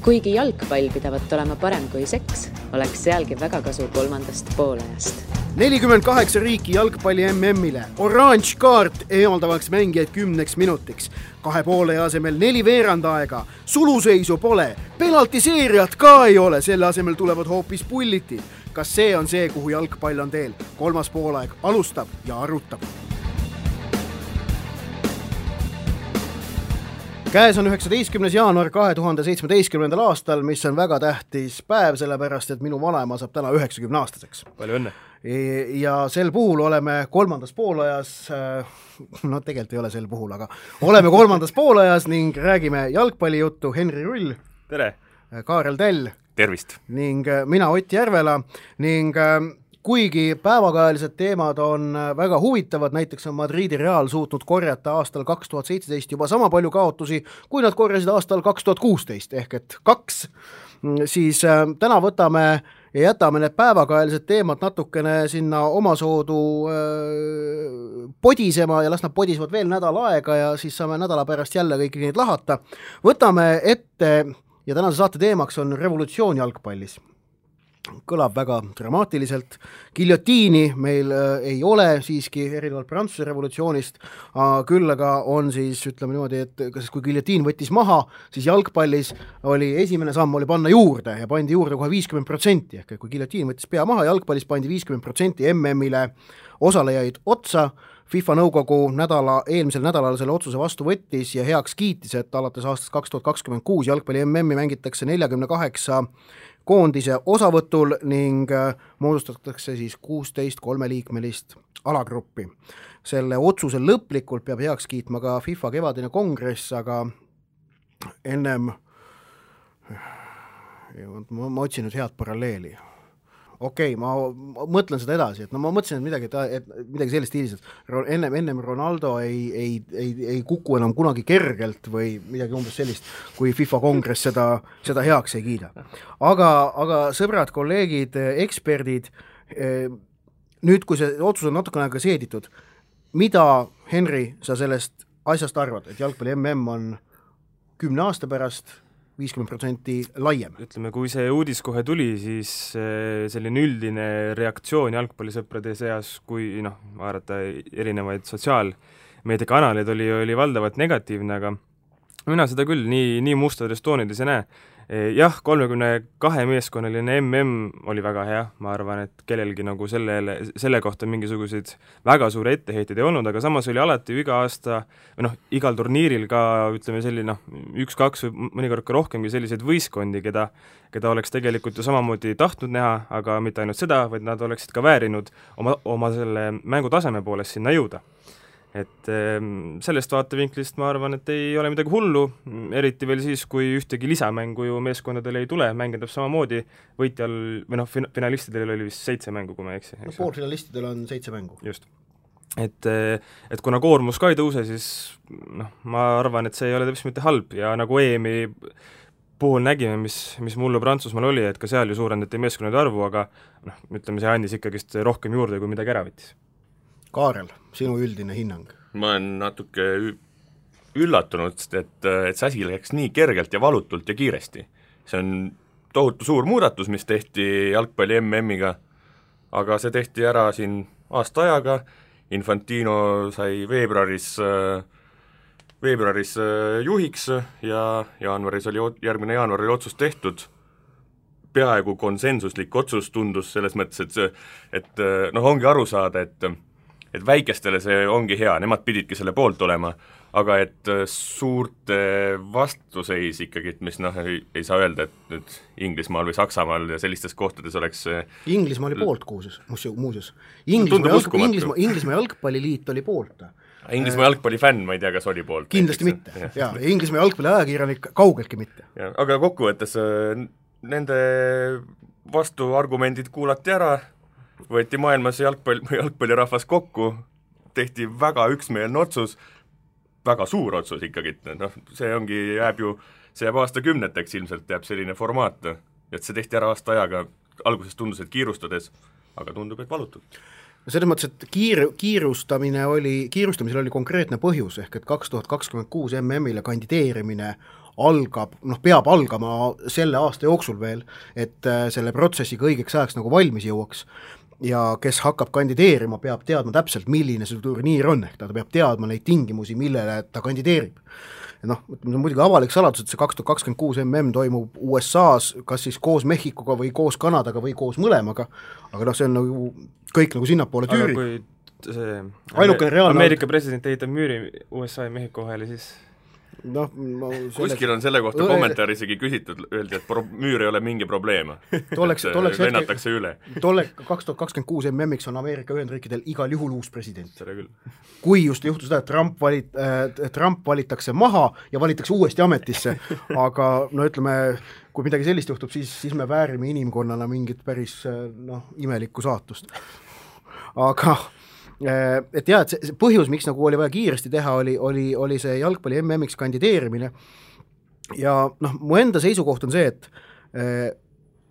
Kuigi jalgpall pidavat olema parem kui seks, oleks sealgi väga kasu kolmandast poolajast. 48 riiki jalgpalli MM-ile, oranž kaart eemaldavaks mängijaid 10 minutiks, 2 poole asemel 4 veerandaega, suluseisu pole, penaltiseeriat ka ei ole, selle asemel tulevad hoopis pullitid. Kas see on see, kuhu jalgpall on teel? Kolmas poolaeg alustab ja arutab. Käes on 19. jaanuar 2017. aastal, mis on väga tähtis päev, sellepärast, et minu vanaema saab täna 90-aastaseks. Palju õnne. Ja sel puhul oleme kolmandas poolajas, no tegelikult ei ole sel puhul, aga oleme kolmandas poolajas ning räägime jalgpallijuttu. Henri Rull. Tere. Kaarel Tell. Tervist. Ning mina Ott Järvela ning kuigi päevakajalised teemad on väga huvitavad, näiteks on Madridi Real suutnud korjata aastal 2017 juba sama palju kaotusi, kui nad korjasid aastal 2016, ehk et 2, siis täna võtame ja jätame need päevakajalised teemad natukene sinna omasoodu podisema ja las nad podisevad veel nädal aega ja siis saame nädala pärast jälle kõiki neid lahata. Võtame ette ja tänase saate teemaks on revolutsioon jalgpallis. Kõlab väga dramaatiliselt. Giljotiini meil ei ole siiski erinevalt Prantsuse revolutsioonist, küll aga on siis, ütleme niimoodi, et kui giljotiin võttis maha, siis jalgpallis oli esimene samm oli panna juurde ja pandi juurde kohe 50%, ehk kui giljotiin võttis pea maha, jalgpallis pandi 50% MM-ile osalejaid otsa. FIFA nõukogu eelmisel nädalal selle otsuse vastu võttis ja heaks kiitis, et alates aastast 2026 jalgpalli MM-i mängitakse 48 koondise osavõtul ning moodustatakse siis 16 3-liikmelist alagruppi. Selle otsuse lõplikult peab heaks kiitma ka FIFA kevadine kongress, aga ennem ma otsin nüüd head paralleeli. Okei, ma mõtlen seda edasi, et no ma mõtlesin, et midagi sellist stiilis, et ennem Ronaldo ei kuku enam kunagi kergelt või midagi umbes sellist, kui FIFA kongress seda heaks ei kiida. Aga sõbrad, kolleegid, eksperdid, nüüd kui see otsus on natukene aega seeditud, mida, Henri, sa sellest asjast arvad, et jalgpalli MM on 10 aasta pärast 50% laiem? Ütleme, kui see uudis kohe tuli, siis selline üldine reaktsioon jalgpallisõprade seas, kui vaadata erinevaid sotsiaalmeediakanaleid oli valdavalt negatiivne, aga mina seda küll nii mustades toonides ei näe. Jah, 32 meeskonnaline MM oli väga hea, ma arvan, et kellelgi nagu selle kohta mingisuguseid väga suure etteheiteid ei olnud, aga samas oli alati iga aasta, igal turniiril ka, ütleme selline 1-2 või mõnikord ka rohkemgi selliseid võistkondi, keda oleks tegelikult ju samamoodi tahtnud näha, aga mitte ainult seda, vaid nad oleksid ka väärinud oma selle mängutaseme poolest sinna jõuda. Et sellest vaatevinklist ma arvan, et ei ole midagi hullu, eriti veel siis, kui ühtegi lisamängu ju meeskondadel ei tule, mängindab samamoodi võitjal, või finalistidel oli vist 7 mängu, kui ma ei eksi. Poolfinalistidel on 7 mängu. Just. Et kuna koormus ka ei tõuse, siis ma arvan, et see ei ole täpselt mitte halb ja nagu EM-i puhul nägime, mis mullu Prantsusmaal oli, et ka seal ju suurendati meeskonnade arvu, aga ütleme, see andis ikkagist rohkem juurde, kui midagi ära võttis. Kaarel, sinu üldine hinnang? Ma olen natuke üllatunud, et see asi läks nii kergelt ja valutult ja kiiresti. See on tohutu suur muudatus, mis tehti jalgpalli MM-iga, aga see tehti ära siin aasta ajaga. Infantino sai veebruaris juhiks ja järgmine jaanuar oli otsus tehtud. Peaaegu konsensuslik otsus tundus selles mõttes, et ongi aru saada, et väikestele see ongi hea, nemad pididki selle poolt olema, aga et suurte vastuseis ikkagi, mis ei saa öelda, et nüüd Inglismaal või Saksamaal ja sellistes kohtades oleks Inglismaa oli poolt muuseas. Inglismaa jalgpalliliit oli poolt. Inglismaa jalgpallifänn, ma ei tea, kas oli poolt. Kindlasti mitte, ja Inglismaa jalgpalli ajakirjanik kaugeltki mitte. Aga kokkuvõttes nende vastuargumendid kuulati ära, võeti maailmas jalgpallirahvas kokku, tehti väga üksmeelne otsus, väga suur otsus ikkagi, see jääb aastakümneteks ilmselt jääb selline formaat, et see tehti ära aasta ajaga, alguses tundus, et kiirustades, aga tundub, et valutult. Selles mõttes, et kiirustamisel oli konkreetne põhjus, ehk et 2026 MM-ile kandideerimine algab, peab algama selle aasta jooksul veel, et selle protsessiga õigeks ajaks nagu valmis jõuaks ja kes hakkab kandideerima, peab teadma täpselt, milline see turniir on, ehk ta peab teadma neid tingimusi, millele ta kandideerib. See on muidugi avalik saladus, et see 2026 MM toimub USA-s, kas siis koos Mehhikoga või koos Kanadaga või koos mõlemaga, aga see on nagu kõik nagu sinnapoole tüüri. Aga kui see Ameerika president ehitab müüri USA ja Mehhiko vahele, siis kuskil on selle kohta kommentaar isegi küsitud, öeldi, et müür ei ole mingi probleem. Lennatakse üle. 2026 MM-iks on Ameerika Ühendriikidel igal juhul uus president. Kui just juhtus seda, et Trump valitakse maha ja valitakse uuesti ametisse, aga ütleme, kui midagi sellist juhtub, siis me väärime inimkonnana mingit päris imelikku saatust. Aga et jah, et see põhjus, miks nagu oli vaja kiiresti teha, oli see jalgpalli MM-iks kandideerimine ja mu enda seisukoht on see, et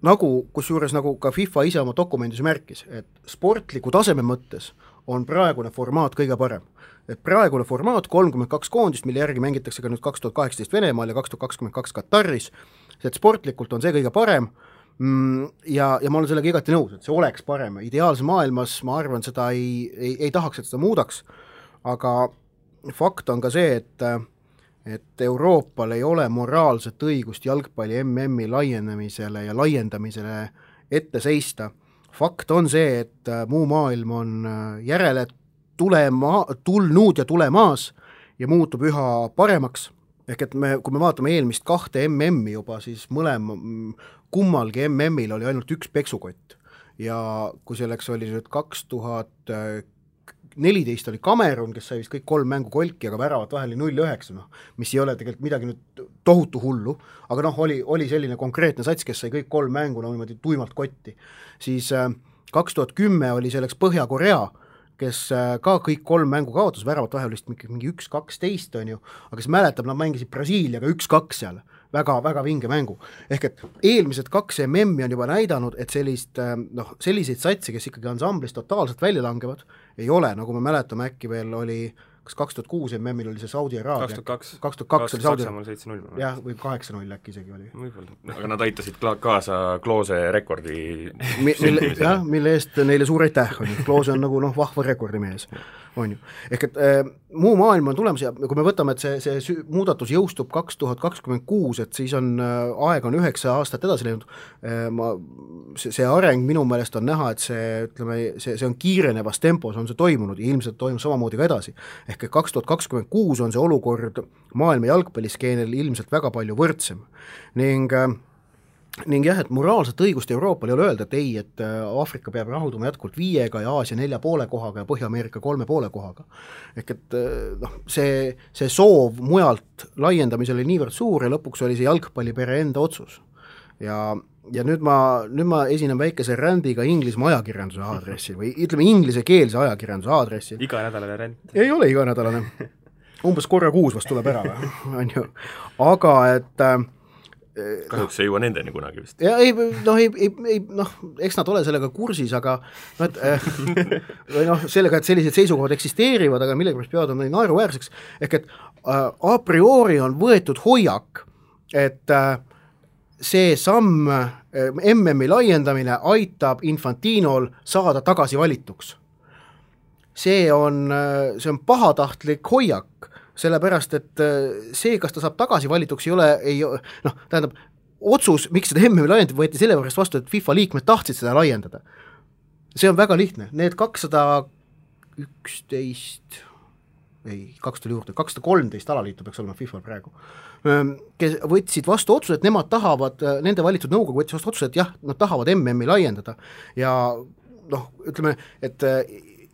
kusjuures nagu ka FIFA ise oma dokumendis märkis, et sportliku taseme mõttes on praegune formaat kõige parem. Et praegune formaat 32 koondist, mille järgi mängitakse ka nüüd 2018 Venemaal ja 2022 Kataris, et sportlikult on see kõige parem, ja ma olen sellega igati nõus, et see oleks parem. Ideaalse maailmas ma arvan, seda ei tahaks, et seda muudaks, aga fakt on ka see, et Euroopal ei ole moraalset õigust jalgpalli MM-i laienemisele ja laiendamisele ette seista. Fakt on see, et muu maailm on järele tulnud ja tulemaas ja muutub üha paremaks. Ehk et kui me vaatame eelmist 2 MM-i juba, siis kummalgi MM-il oli ainult üks peksukott ja kui selleks oli nüüd 2014 oli Kamerun, kes sai vist kõik 3 mängu kolki, aga väravat vahel 0-9, mis ei ole tegelikult midagi nüüd tohutu hullu, aga oli selline konkreetne sats, kes sai kõik 3 mängu niimoodi tuimalt kotti. Siis 2010 oli selleks Põhja-Korea, kes ka kõik 3 mängu kaotas, väravat vahel vist mingi 1-12 on ju, aga kes mäletab, nad mängisid Brasiiliaga 1-2 seal, väga vinge mängu. Ehk et eelmised 2 MM-i on juba näidanud, et selliseid satse, kes ikkagi ansamblis totaalselt välja langevad, ei ole, nagu me mäletame, äkki veel oli, kas 2006 MM-il oli see Saudi Araabia? 2002 oli Saudi Araabia. Jah, või 8-0 äkki isegi oli. Aga nad aitasid kaasa Kloose rekordi mille eest neile suur aitäh on. Kloose on nagu vahva rekordimees. On ju. Ehk et muu maailm on tulemas ja kui me võtame, et see muudatus jõustub 2026, et siis on aeg on 9 aastat edasi läinud, see areng minu meelest on näha, et see on kiirenevas tempos, on see toimunud ja ilmselt toimub samamoodi ka edasi. Ehk et 2026 on see olukord maailma jalgpalliskeenel ilmselt väga palju võrdsem ning jah, et moraalset õigust Euroopal ei ole öelda, et ei, et Aafrika peab rahulduma jätkuvalt 5 ja Aasia 4,5 kohaga ja Põhja-Ameerika 3,5 kohaga. Ehk et see soov mujalt laiendamisel oli niivõrd suur ja lõpuks oli see jalgpallipere enda otsus. Ja nüüd ma esinen väikese rändiga Inglismaa ajakirjanduse aadressil või ütleme inglisekeelse ajakirjanduse aadressil. Iganädalane ränd. Ei ole iganädalane. Umbes korra kuus vast tuleb ära, on ju. Aga et kahjuks ei jõua nendeni kunagi vist. Ja eks nad ole sellega kursis, aga sellega, et sellised seisukohad eksisteerivad, aga millegipärast peavad on naeruväärseks, ehk et a priori on võetud hoiak, et see samm MM-i laiendamine aitab Infantinol saada tagasi valituks. See on pahatahtlik hoiak, sellepärast, et see, kas ta saab tagasi valituks, tähendab, otsus, miks seda MM-i laiendada, võeti selle pärast vastu, et FIFA liikmed tahtsid seda laiendada. See on väga lihtne. Need 213 alaliitu peaks olema FIFA praegu, kes võtsid vastu otsuse, et nemad tahavad, nende valitud nõukogu võttis vastu otsuse, et jah, nad tahavad MM-i laiendada ja ütleme, et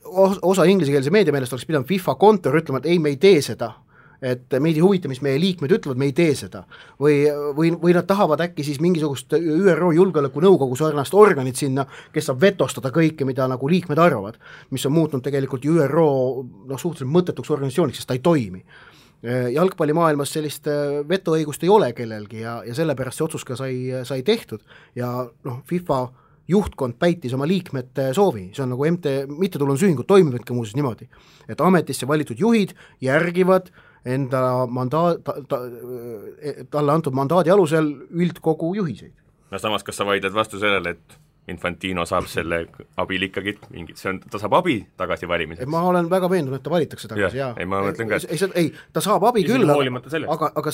osa inglisekeelse meedia meelest oleks pidanud FIFA kontor ütlema, et ei, me ei tee seda, et meid ei huvita, mis meie liikmed ütlevad, me ei tee seda. Või nad tahavad äkki siis mingisugust ÜRO julgeolekunõukogu sarnast organit sinna, kes saab vetostada kõike, mida nagu liikmed arvavad, mis on muutnud tegelikult ÜRO suhteliselt mõttetuks organisatsiooniks, sest ta ei toimi. Jalgpallimaailmas sellist vetoõigust ei ole kellelgi ja sellepärast see otsus ka sai tehtud ja FIFA juhtkond päitis oma liikmete soovi, see on nagu mittetulundusühingud toimivadki muuseas niimoodi, et ametisse valitud juhid järgivad enda talle antud mandaadi alusel üldkogu juhiseid. No samas, kas sa vaidled vastu sellele, et Infantino saab selle abil ikkagi mingit, ta saab abi tagasi valimiseks? Ma olen väga veendunud, et ta valitakse tagasi, jaa. Ei, ma mõtlen ka, ei, ta saab abi küll, aga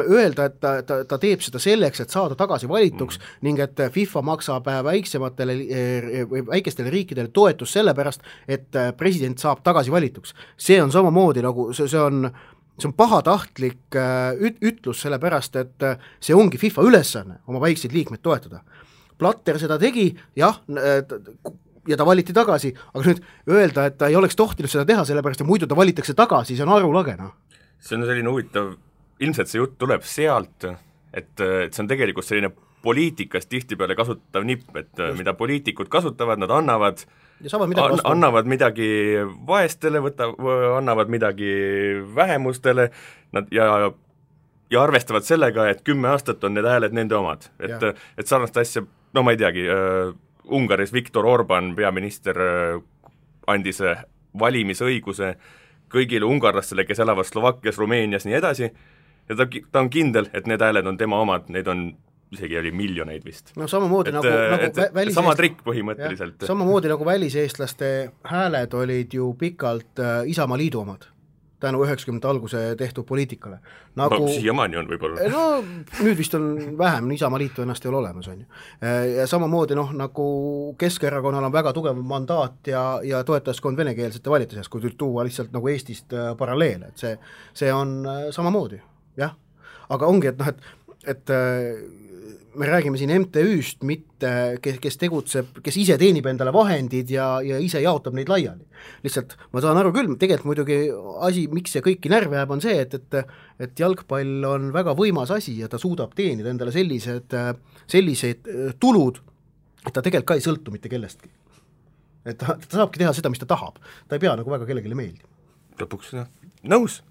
öelda, et ta teeb seda selleks, et saada tagasi valituks ning et FIFA maksab väikestele riikidele toetust sellepärast, et president saab tagasi valituks. See on samamoodi nagu, see on pahatahtlik ütlus sellepärast, et see ongi FIFA ülesanne oma väikseid liikmeid toetada. Platter seda tegi, jah, ja ta valiti tagasi, aga nüüd öelda, et ta ei oleks tohtinud seda teha, sellepärast, et muidu ta valitakse tagasi, see on arulagena. See on selline huvitav, ilmselt see jutt tuleb sealt, et see on tegelikult selline poliitikas tihtipeale kasutatav nipp, et mida poliitikud kasutavad, nad annavad midagi vaestele, annavad midagi vähemustele, ja arvestavad sellega, et 10 aastat on need hääled nende omad. Et sarnast asja, no ma ei teagi, Ungaris Viktor Orban, peaminister, andis valimisõiguse kõigile ungarlastele, kes elavad Slovakkias, Rumeenias, nii edasi, ja ta on kindel, et need hääled on tema omad, neid on isegi oli miljoneid vist. No samamoodi sama trikk põhimõtteliselt. Samamoodi nagu väliseestlaste hääled olid ju pikalt Isamaa Liidu omad, tänu 90 alguse tehtud poliitikale. Nagu, siiamaani on võib-olla. No nüüd vist on vähem, Isamaa Liitu ennast ei ole olemas, on ju. Ja samamoodi nagu Keskerakonnal on väga tugev mandaat ja toetajaskond venekeelsete valite seas, kui tuua lihtsalt nagu Eestist paralleele, et see on samamoodi, jah. Aga ongi, et me räägime siin MTÜ-st, mitte kes tegutseb, kes ise teenib endale vahendid ja ise jaotab neid laiali. Lihtsalt ma saan aru küll, tegelikult muidugi asi, miks see kõiki närve jääb, on see, et jalgpall on väga võimas asi ja ta suudab teenida endale sellised tulud, et ta tegelikult ka ei sõltu mitte kellestki. Et ta saabki teha seda, mis ta tahab. Ta ei pea nagu väga kellelegi meeldima. Lõpuks, nõus.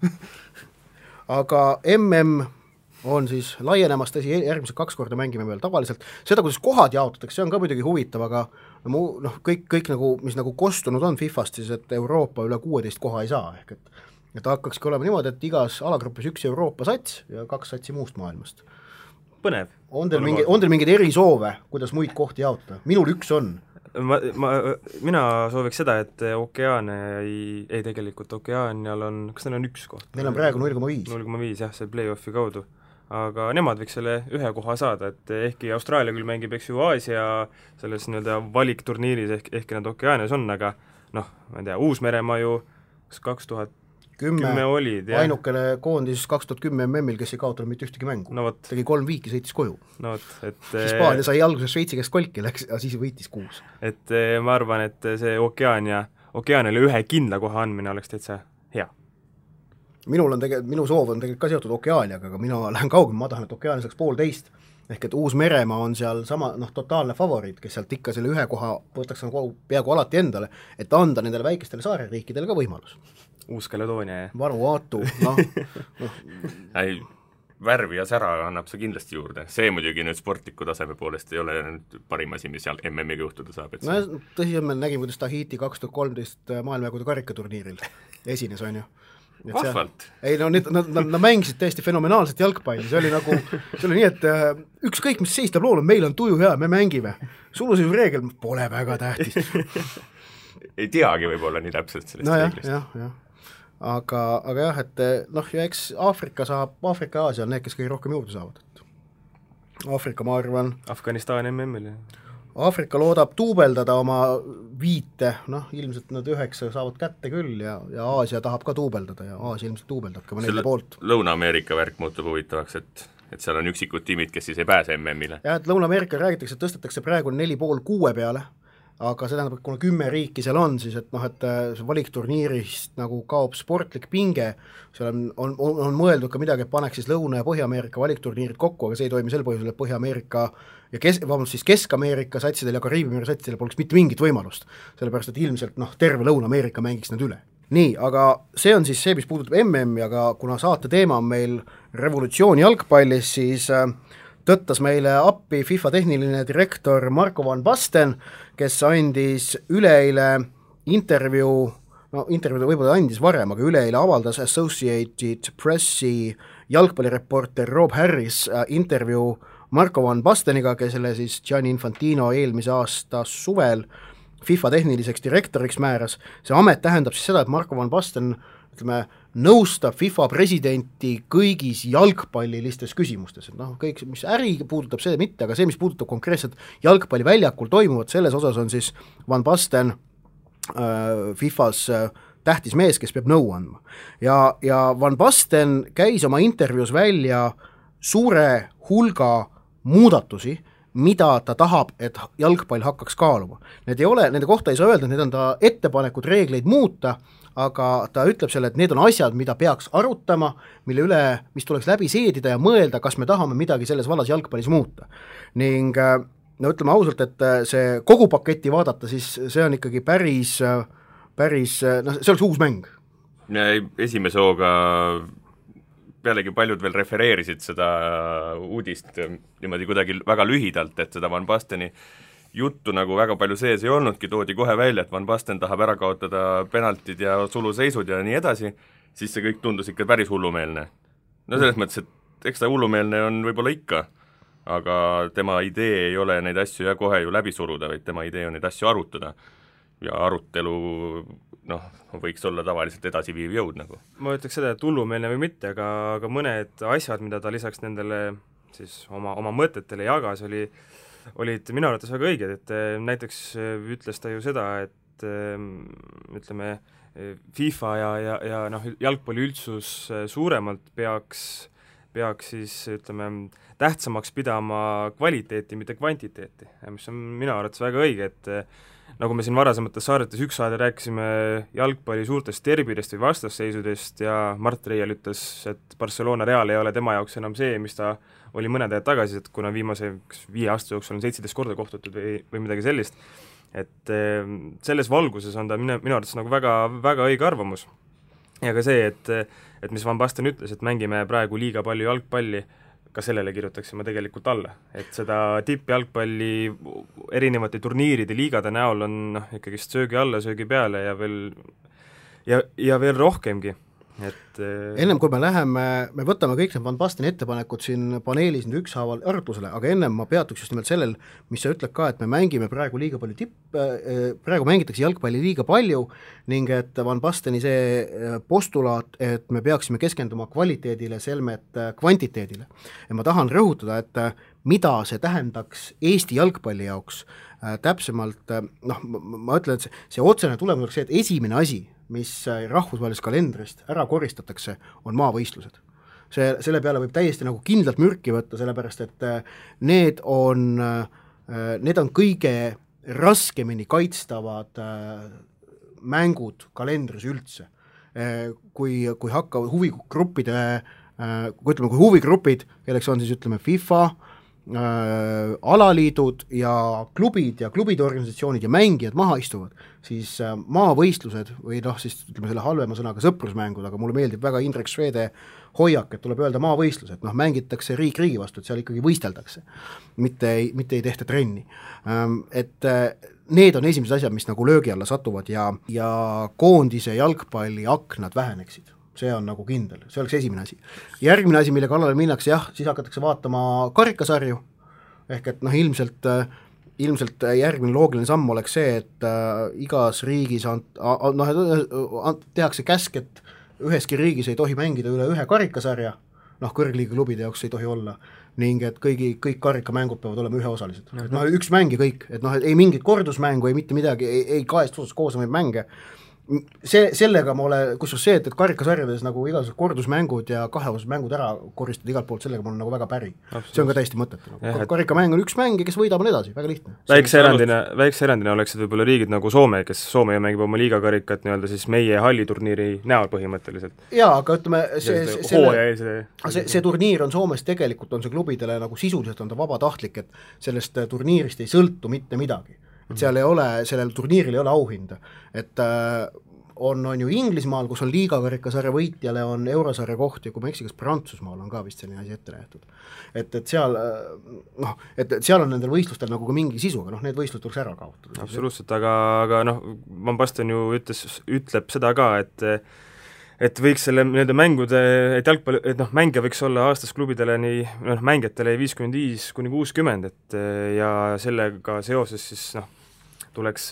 Aga on siis laienemas, tõsi, järgmised 2 korda mängime veel tavaliselt. Seda, kuidas kohad jaotatakse, see on ka muidugi huvitav, aga kõik nagu, mis nagu kostunud on FIFast, siis et Euroopa üle 16 koha ei saa, ehk et hakkakski olema niimoodi, et igas alagrupis 1 Euroopa sats ja 2 satsi muust maailmast. Põnev. On teil mingid erisoove, kuidas muid kohti jaotada? Minul 1 on. Mina sooviks seda, et Okeaania ei tegelikult Okeaanial on, kas neil on 1 koht? Neil on praegu 0,5. 0,5, jah, see play-offi kaudu. Aga nemad võiks selle 1 koha saada, et ehkki Austraalia küll mängib, eks ju, Aasia selles nii-öelda valikturniiris, ehkki nad Okeaanias on, aga ma ei tea, Uus-Meremaa ju 2010 olid. Ainukene koondis 2010 MM-il, kes ei kaotanud mitte ühtegi mängu. Tegi 3 viiki, sõitis koju. Hispaania sai alguses Šveitsi käest kolki, ja siis võitis 6. Et ma arvan, et see Okeaaniale 1 kindla koha andmine oleks täitsa hea. Minu soov on tegelikult ka seotud Okeaaniaga, aga mina lähen kaugem, ma tahan, et Okeaania saaks 1,5, ehk et Uus-Meremaa on seal sama totaalne favoriit, kes sealt ikka selle 1 koha võtaks peaaegu alati endale, et anda nendele väikestele saareriikidele ka võimalus. Uus-Kaledoonia, jah. Vanuatu, värvi ja sära annab see kindlasti juurde. See muidugi nüüd sportliku taseme poolest ei ole nüüd parim asi, mis seal MM-iga juhtuda saab. Tõsi, me nägime, kuidas Tahiti 2013 maailmajagude karikaturniiril esines, on ju. Vahvalt. Ei, nad mängisid täiesti fenomenaalset jalgpalli, see oli nii, et ükskõik, mis seistab lool, meil on tuju hea, me mängime. Suluseisu reegel pole väga tähtis. Ei teagi võib-olla nii täpselt sellest reeglist. Jah. Aga jah, et ja eks Aafrika ja Aasia on need, kes kõige rohkem juurde saavad. Aafrika, ma arvan. Afganistan MM-il. Aafrika loodab tuubeldada oma 5, ilmselt nad 9 saavad kätte küll ja Aasia tahab ka tuubeldada ja Aasia ilmselt tuubeldab ka 4 poolt. Lõuna-Ameerika värk muutub huvitavaks, et seal on üksikud tiimid, kes siis ei pääse MM-ile. Ja, et Lõuna-Ameerika räägitakse, et tõstetakse praegu 4,5-6 peale, aga see tähendab, et kuna 10 riiki seal on, siis et see valikturniirist nagu kaob sportlik pinge, seal on mõeldud ka midagi, et paneks siis Lõuna- ja Põhja-Ameerika valikturniirid kokku, aga see ei toimi sel põhjusel, et Põhja-Ameerika ja Kesk-Ameerika satsidel ja Kariibi satsidel poleks mitte mingit võimalust, sellepärast et ilmselt terve Lõuna-Ameerika mängiks nad üle. Nii, aga see on siis see, mis puudutab MM-i, aga kuna saate teema on meil revolutsioon jalgpallis, siis tõttas meile appi FIFA tehniline direktor Marko van Basten, kes andis üleeile intervjuu no intervjuud võib-olla andis varem, aga üleeile avaldas Associated Pressi jalgpallireporter Rob Harris intervjuu Marco van Basteniga, kelle siis Gianni Infantino eelmise aasta suvel FIFA tehniliseks direktoriks määras. See amet tähendab siis seda, et Marco van Basten nõustab FIFA presidenti kõigis jalgpallilistes küsimustes, et kõik, mis äri puudutab, see mitte, aga see, mis puudutab konkreetselt jalgpalliväljakul toimuvat, selles osas on siis Van Basten FIFAs tähtis mees, kes peab nõu andma. Ja Van Basten käis oma intervjuus välja suure hulga muudatusi, mida ta tahab, et jalgpall hakkaks kaaluma. Nende kohta ei saa öelda, et need on ta ettepanekud reegleid muuta, aga ta ütleb selle, et need on asjad, mida peaks arutama, mille üle, mis tuleks läbi seedida ja mõelda, kas me tahame midagi selles vallas jalgpallis muuta. Ning no ütleme ausalt, et see kogu paketti vaadata, siis see on ikkagi päris no see oleks uus mäng. Esimese hooga pealegi paljud veel refereerisid seda uudist niimoodi kuidagi väga lühidalt, et seda Van Basteni juttu nagu väga palju sees ei olnudki, toodi kohe välja, et Van Basten tahab ära kaotada penaltid ja suluseisud ja nii edasi, siis see kõik tundus ikka päris hullumeelne. No selles mõttes, et eks ta hullumeelne on võib-olla ikka, aga tema idee ei ole neid asju ja kohe ju läbi suruda, vaid tema idee on neid asju arutada. Ja arutelu võiks olla tavaliselt edasiviiv jõud nagu. Ma ütleks seda, et hullumeelne või mitte, aga mõned asjad, mida ta lisaks nendele siis oma mõtetele jagas, olid minu arvates väga õiged, et näiteks ütles ta ju seda, et ütleme, FIFA ja jalgpalli üldsus suuremalt peaks siis ütleme, tähtsamaks pidama kvaliteeti, mitte kvantiteeti, mis on minu arvates väga õige, et nagu me siin varasemates saadetes üks saade rääkisime jalgpalli suurtest derbidest või vastasseisudest ja Mart Reial ütles, et Barcelona Real ei ole tema jaoks enam see, mis ta oli mõned ajad tagasi, et kuna viimase 5 aasta jooksul on 17 korda kohtutud või midagi sellist, et selles valguses on ta minu arvates nagu väga, väga õige arvamus. Ja ka see, et mis Van Basten ütles, et mängime praegu liiga palju jalgpalli, ka sellele kirjutaksime tegelikult alla, et seda tippjalgpalli erinevate turniiride liigade näol on ikkagi söögi alla, söögi peale ja veel rohkemgi. Et ennem kui me võtame kõik need Van Basteni ettepanekud siin paneelis nüüd ükshaaval arutlusele, aga ennem ma peatuks just nimelt sellel, mis sa ütled ka, et me mängime praegu liiga palju praegu mängitakse jalgpalli liiga palju ning et Van Basteni see postulaat, et me peaksime keskenduma kvaliteedile, selmet kvantiteedile. Ja ma tahan rõhutada, et mida see tähendaks Eesti jalgpalli jaoks täpsemalt, ma ütlen, et see otsene tulemus oleks see, et esimene asi, mis rahvusvahelisest kalendrist ära koristatakse, on maavõistlused. Selle peale võib täiesti nagu kindlalt mürki võtta, sellepärast et need on kõige raskemini kaitstavad mängud kalendris üldse. Kui hakkavad huvigruppide, kui huvigrupid, kelleks on siis ütleme FIFA, alaliidud ja klubide organisatsioonid ja mängijad maha istuvad, siis maavõistlused või siis ütleme selle halvema sõnaga sõprusmängud, aga mulle meeldib väga Indrek Švede hoiak, et tuleb öelda maavõistlused, mängitakse riik riigi vastu, et seal ikkagi võisteldakse, mitte ei tehta trenni. Et need on esimesed asjad, mis nagu löögi alla satuvad ja koondise jalgpalli aknad väheneksid. See on nagu kindel, see oleks esimene asi. Järgmine asi, mille kallale minnakse, siis hakatakse vaatama karikasarju, ehk et ilmselt järgmine loogiline samm oleks see, et igas riigis tehakse käsk, et üheski riigis ei tohi mängida üle ühe karikasarja, kõrgliiga klubide jaoks ei tohi olla, ning et kõik karikamängud peavad olema üheosalised. Üks mäng ja kõik, et ei mingit kordusmängu, ei mitte midagi, ei kahest osast koosnevaid mänge. Sellega ma olen, kus see, et karikasarjades nagu igasugused kordusmängud ja kaheosased mängud ära koristada igalt poolt, sellega ma olen nagu väga päri. See on ka täiesti mõttetu. Karikamäng on üks mäng ja kes võidab on edasi, väga lihtne. Väikse erandina oleksid võib-olla riigid nagu Soome, kes Soome mängib oma liigakarikat nii-öelda siis meie halliturniiri näol põhimõtteliselt. Jaa, aga ütleme, see turniir on Soomes tegelikult on see klubidele nagu sisuliselt on ta vabatahtlik, et sellest turniirist ei sõltu mitte midagi. Et seal ei ole, sellel turniiril ei ole auhinda, et on ju Inglismaal, kus on liigakarikasarja võitjale on eurosarja koht ja kui ma eksi, kas Prantsusmaal on ka vist selline asi ette nähtud. Et seal et seal on nendel võistlustel nagu ka mingi sisuga, need võistlused tuleks ära kaotada. Absoluutselt, aga Van Basten ju ütleb seda ka, et võiks selle nende mängude, et jalgpalli, et mängija võiks olla aastas klubidele nii, mängijatele 55-60, et ja sellega seoses siis tuleks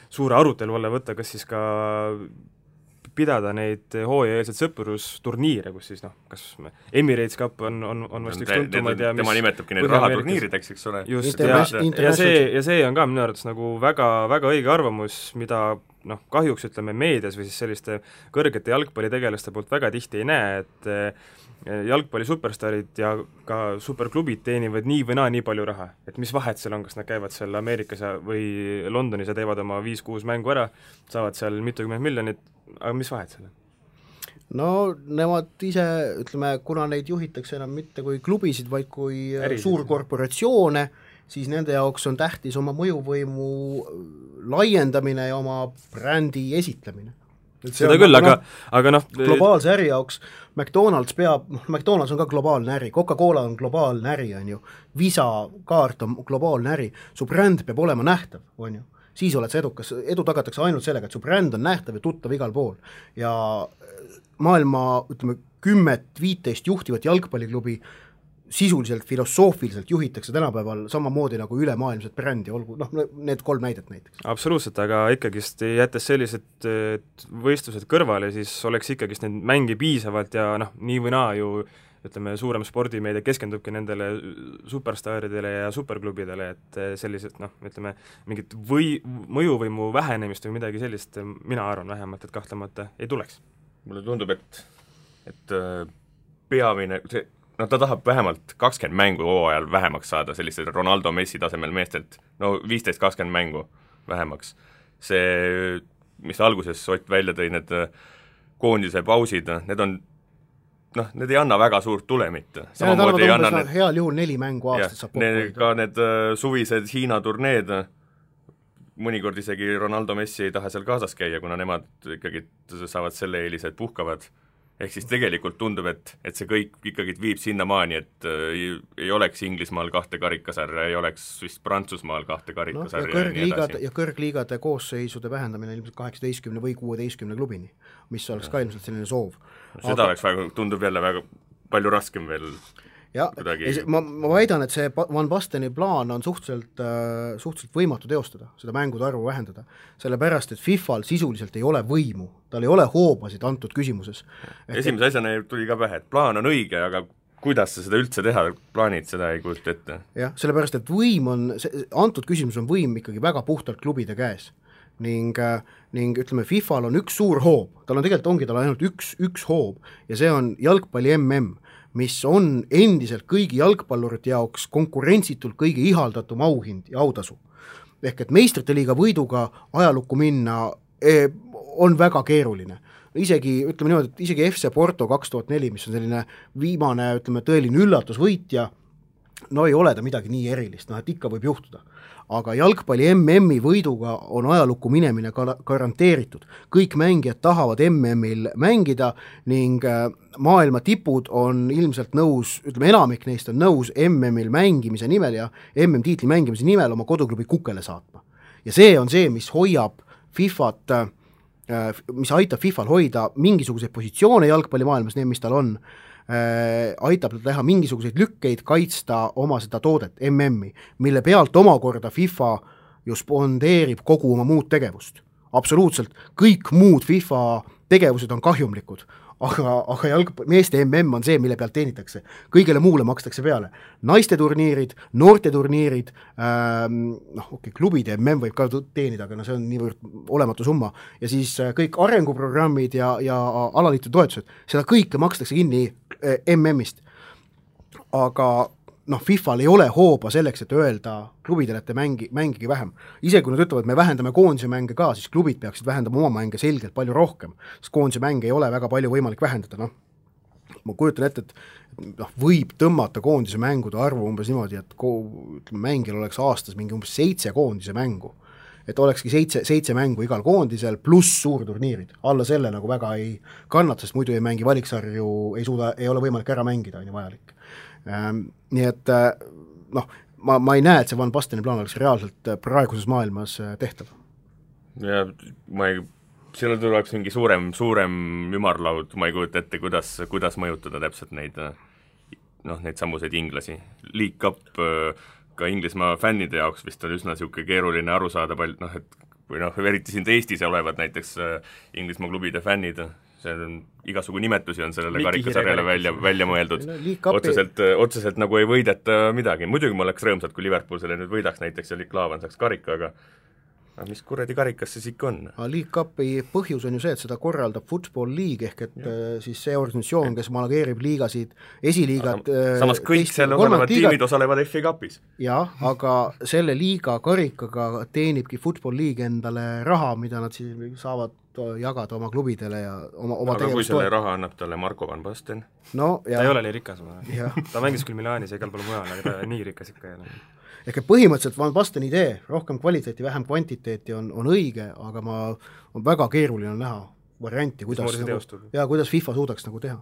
suure arutelu alla võtta, kas siis ka pidada neid hooajaeelseid sõprusturniire, kus siis kas Emirates Cup on vast üks tuntumaid ja tema nimetabki neid rahaturniirideks, eks ole. Just, ja see on ka minu arvates nagu väga, väga õige arvamus, mida kahjuks ütleme meedias või siis selliste kõrgete jalgpallitegelaste poolt väga tihti ei näe, et jalgpalli superstarid ja ka superklubid teenivad nii või nii palju raha, et mis vahet seal on, kas nad käivad seal Ameerikas või Londonis ja teevad oma 5-6 mängu ära, saavad seal mitukümmend miljonit, aga mis vahet seal on? No nemad ise, ütleme, kuna neid juhitakse enam mitte kui klubisid, vaid kui suurkorporatsioone, siis nende jaoks on tähtis oma mõjuvõimu laiendamine ja oma brändi esitlemine. Seda küll, aga globaalse äri jaoks McDonald's on ka globaalne äri, Coca-Cola on globaalne äri, on ju, Visa kaart on globaalne äri, su bränd peab olema nähtav, on ju, siis oled sa edukas, edu tagatakse ainult sellega, et su bränd on nähtav ja tuttav igal pool ja maailma, ütleme, 10-15 juhtivat jalgpalliklubi sisuliselt, filosoofiliselt juhitakse tänapäeval samamoodi nagu ülemaailmset brändi, olgu, need 3 näidet näiteks. Absoluutselt, aga ikkagist jättes sellised võistlused kõrvale, siis oleks ikkagist neid mängi piisavalt ja nii või naa ju ütleme, suurem spordimeedia keskendubki nendele superstaaridele ja superklubidele, et sellised, ütleme, mingit mõjuvõimu vähenemist või midagi sellist, mina arvan vähemalt, et kahtlemata ei tuleks. Mulle tundub, et peamine, ta tahab vähemalt 20 mängu hooajal vähemaks saada, sellised Ronaldo Messi tasemel meestelt, 15-20 mängu vähemaks. See, mis alguses Ott välja tõi, need koondise pausid, need on need ei anna väga suurt tulemit. Samamoodi ei anna heal juhul 4 mängu aastas saab kokku. Ka need suvised Hiina turneed, mõnikord isegi Ronaldo Messi ei taha seal kaasas käia, kuna nemad ikkagi saavad selle eelise, et puhkavad. Ehk siis tegelikult tundub, et see kõik ikkagi viib sinnamaani, et ei oleks Inglismaal 2 karikasarja, ei oleks vist Prantsusmaal 2 karikasarja ja kõrgliigade koosseisude vähendamine ilmselt 18 või 16 klubini, mis oleks ka ilmselt selline soov. Seda oleks väga, tundub jälle väga palju raskem veel. Ja, ma väidan, et see Van Basteni plaan on suhteliselt võimatu teostada, seda mängude arvu vähendada, sellepärast, et FIFAl sisuliselt ei ole võimu, tal ei ole hoobasid antud küsimuses. Esimese asjana tuli ka pähe, et plaan on õige, aga kuidas sa seda üldse teha, plaanid seda ei kujuta ette? Jah, sellepärast, et antud küsimus on võim ikkagi väga puhtalt klubide käes. Ning ütleme, FIFAl on üks suur hoob, tal ainult üks hoob ja see on jalgpalli MM, mis on endiselt kõigi jalgpallurite jaoks konkurentsitult kõige ihaldatum auhind ja autasu. Ehk et meistrite liiga võiduga ajalukku minna on väga keeruline. Ütleme niimoodi, et isegi FC Porto 2004, mis on selline viimane, ütleme, tõeline üllatusvõitja, ei ole ta midagi nii erilist, et ikka võib juhtuda. Aga jalgpalli MM-i võiduga on ajalukku minemine garanteeritud. Kõik mängijad tahavad MM-il mängida ning maailma tipud on ilmselt nõus, ütleme enamik neist on nõus MM-il mängimise nimel ja MM-tiitli mängimise nimel oma koduklubi kukele saatma. Ja see on see, mis hoiab FIFAt, mis aitab FIFAl hoida mingisuguseid positsioone jalgpallimaailmas, need, mis tal on, aitab teha mingisuguseid lükkeid, kaitsta oma seda toodet, MM-i, mille pealt omakorda FIFA ju spondeerib kogu oma muud tegevust. Absoluutselt, kõik muud FIFA tegevused on kahjumlikud, aga meeste MM on see, mille pealt teenitakse. Kõigele muule makstakse peale. Naiste turniirid, noorte turniirid, klubide MM võib ka teenida, aga see on niivõrd olematu summa. Ja siis kõik arenguprogrammid ja alaliitu toetused, seda kõike makstakse kinni MM-ist. Aga FIFAl ei ole hooba selleks, et öelda klubidele, et te mängige vähem. Ise kui nad ütlevad, et me vähendame koondise mänge ka, siis klubid peaksid vähendama oma mänge selgelt palju rohkem, sest koondise mänge ei ole väga palju võimalik vähendada. Ma kujutan ette, et võib tõmmata koondise mängude arvu umbes niimoodi, et mängil oleks aastas mingi umbes 7 koondise mängu. et olekski 7 mängu igal koondisel pluss suurturniirid, alla selle nagu väga ei kannata, sest muidu ei mängi valiksarju, ei ole võimalik ära mängida, on ju vajalik. Nii et noh, ma ei näe, et see Van Basteni plaan oleks reaalselt praeguses maailmas tehtav. Ja sellel tuleks mingi suurem ümarlaud, ma ei kujuta ette, kuidas mõjutada täpselt neid samuseid inglasi. League Cup ka Inglismaa fännide jaoks vist on üsna niisugune keeruline aru saada eriti siin Eestis olevad näiteks Inglismaa klubide fännid, see on igasugu nimetusi on sellele karikasarjale välja mõeldud. Otseselt nagu ei võideta midagi. Muidugi ma oleks rõõmsad, kui Liverpool selle nüüd võidaks näiteks ja Klaavan saaks karika, aga mis kuradi karikas siis ikka on? League Cupi põhjus on ju see, et seda korraldab Football League ehk et siis see organisatsioon, kes manageerib liigasid, esiliigad. Samas kõik seal olevad tiimid osalevad FA Cupis. Jah, aga selle liiga karikaga teenibki Football League endale raha, mida nad siis saavad jagada oma klubidele ja oma aga kui selle raha annab talle Marko Van Basten? No, ta ei ole nii rikas. Ta mängis küll Milaanis ja igal pool mujal, aga ta nii rikas ikka ei ole. Ehk põhimõtteliselt Van Basteni idee, rohkem kvaliteeti, vähem kvantiteeti on õige, aga on väga keeruline näha varianti, kuidas FIFA suudaks nagu teha.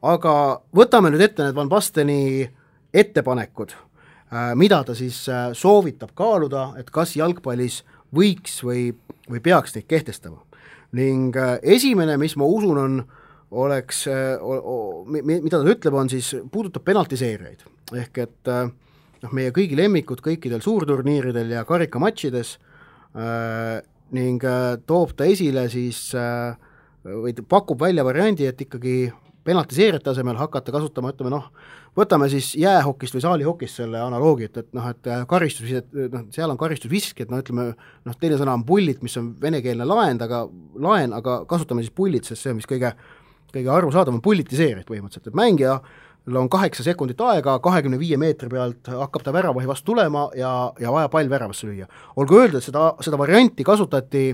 Aga võtame nüüd ette need Van Basteni ettepanekud, mida ta siis soovitab kaaluda, et kas jalgpallis võiks või peaks neid kehtestama. Ning esimene, mis ma usun oleks, mida ta ütleb, on siis, puudutab penaltiseerijaid. Ehk et meie kõigi lemmikud kõikidel suurturniiridel ja karikamatšides ning toob ta esile siis või pakub välja variandi, et ikkagi penaltiseerijate asemel hakata kasutama, võtame siis jäähokist või saalihokist selle analoogi, et karistus, seal on karistusvisk, et teine sõna on pullit, mis on venekeelne laen, aga kasutame siis pullit, sest see on mis kõige arusaadav on pullitiseerijad põhimõtteliselt, et mängija on 8 sekundit aega, 25 meetri pealt hakkab ta väravahi vastu tulema ja vaja pall väravasse lüüa. Olgu öelda, et seda varianti kasutati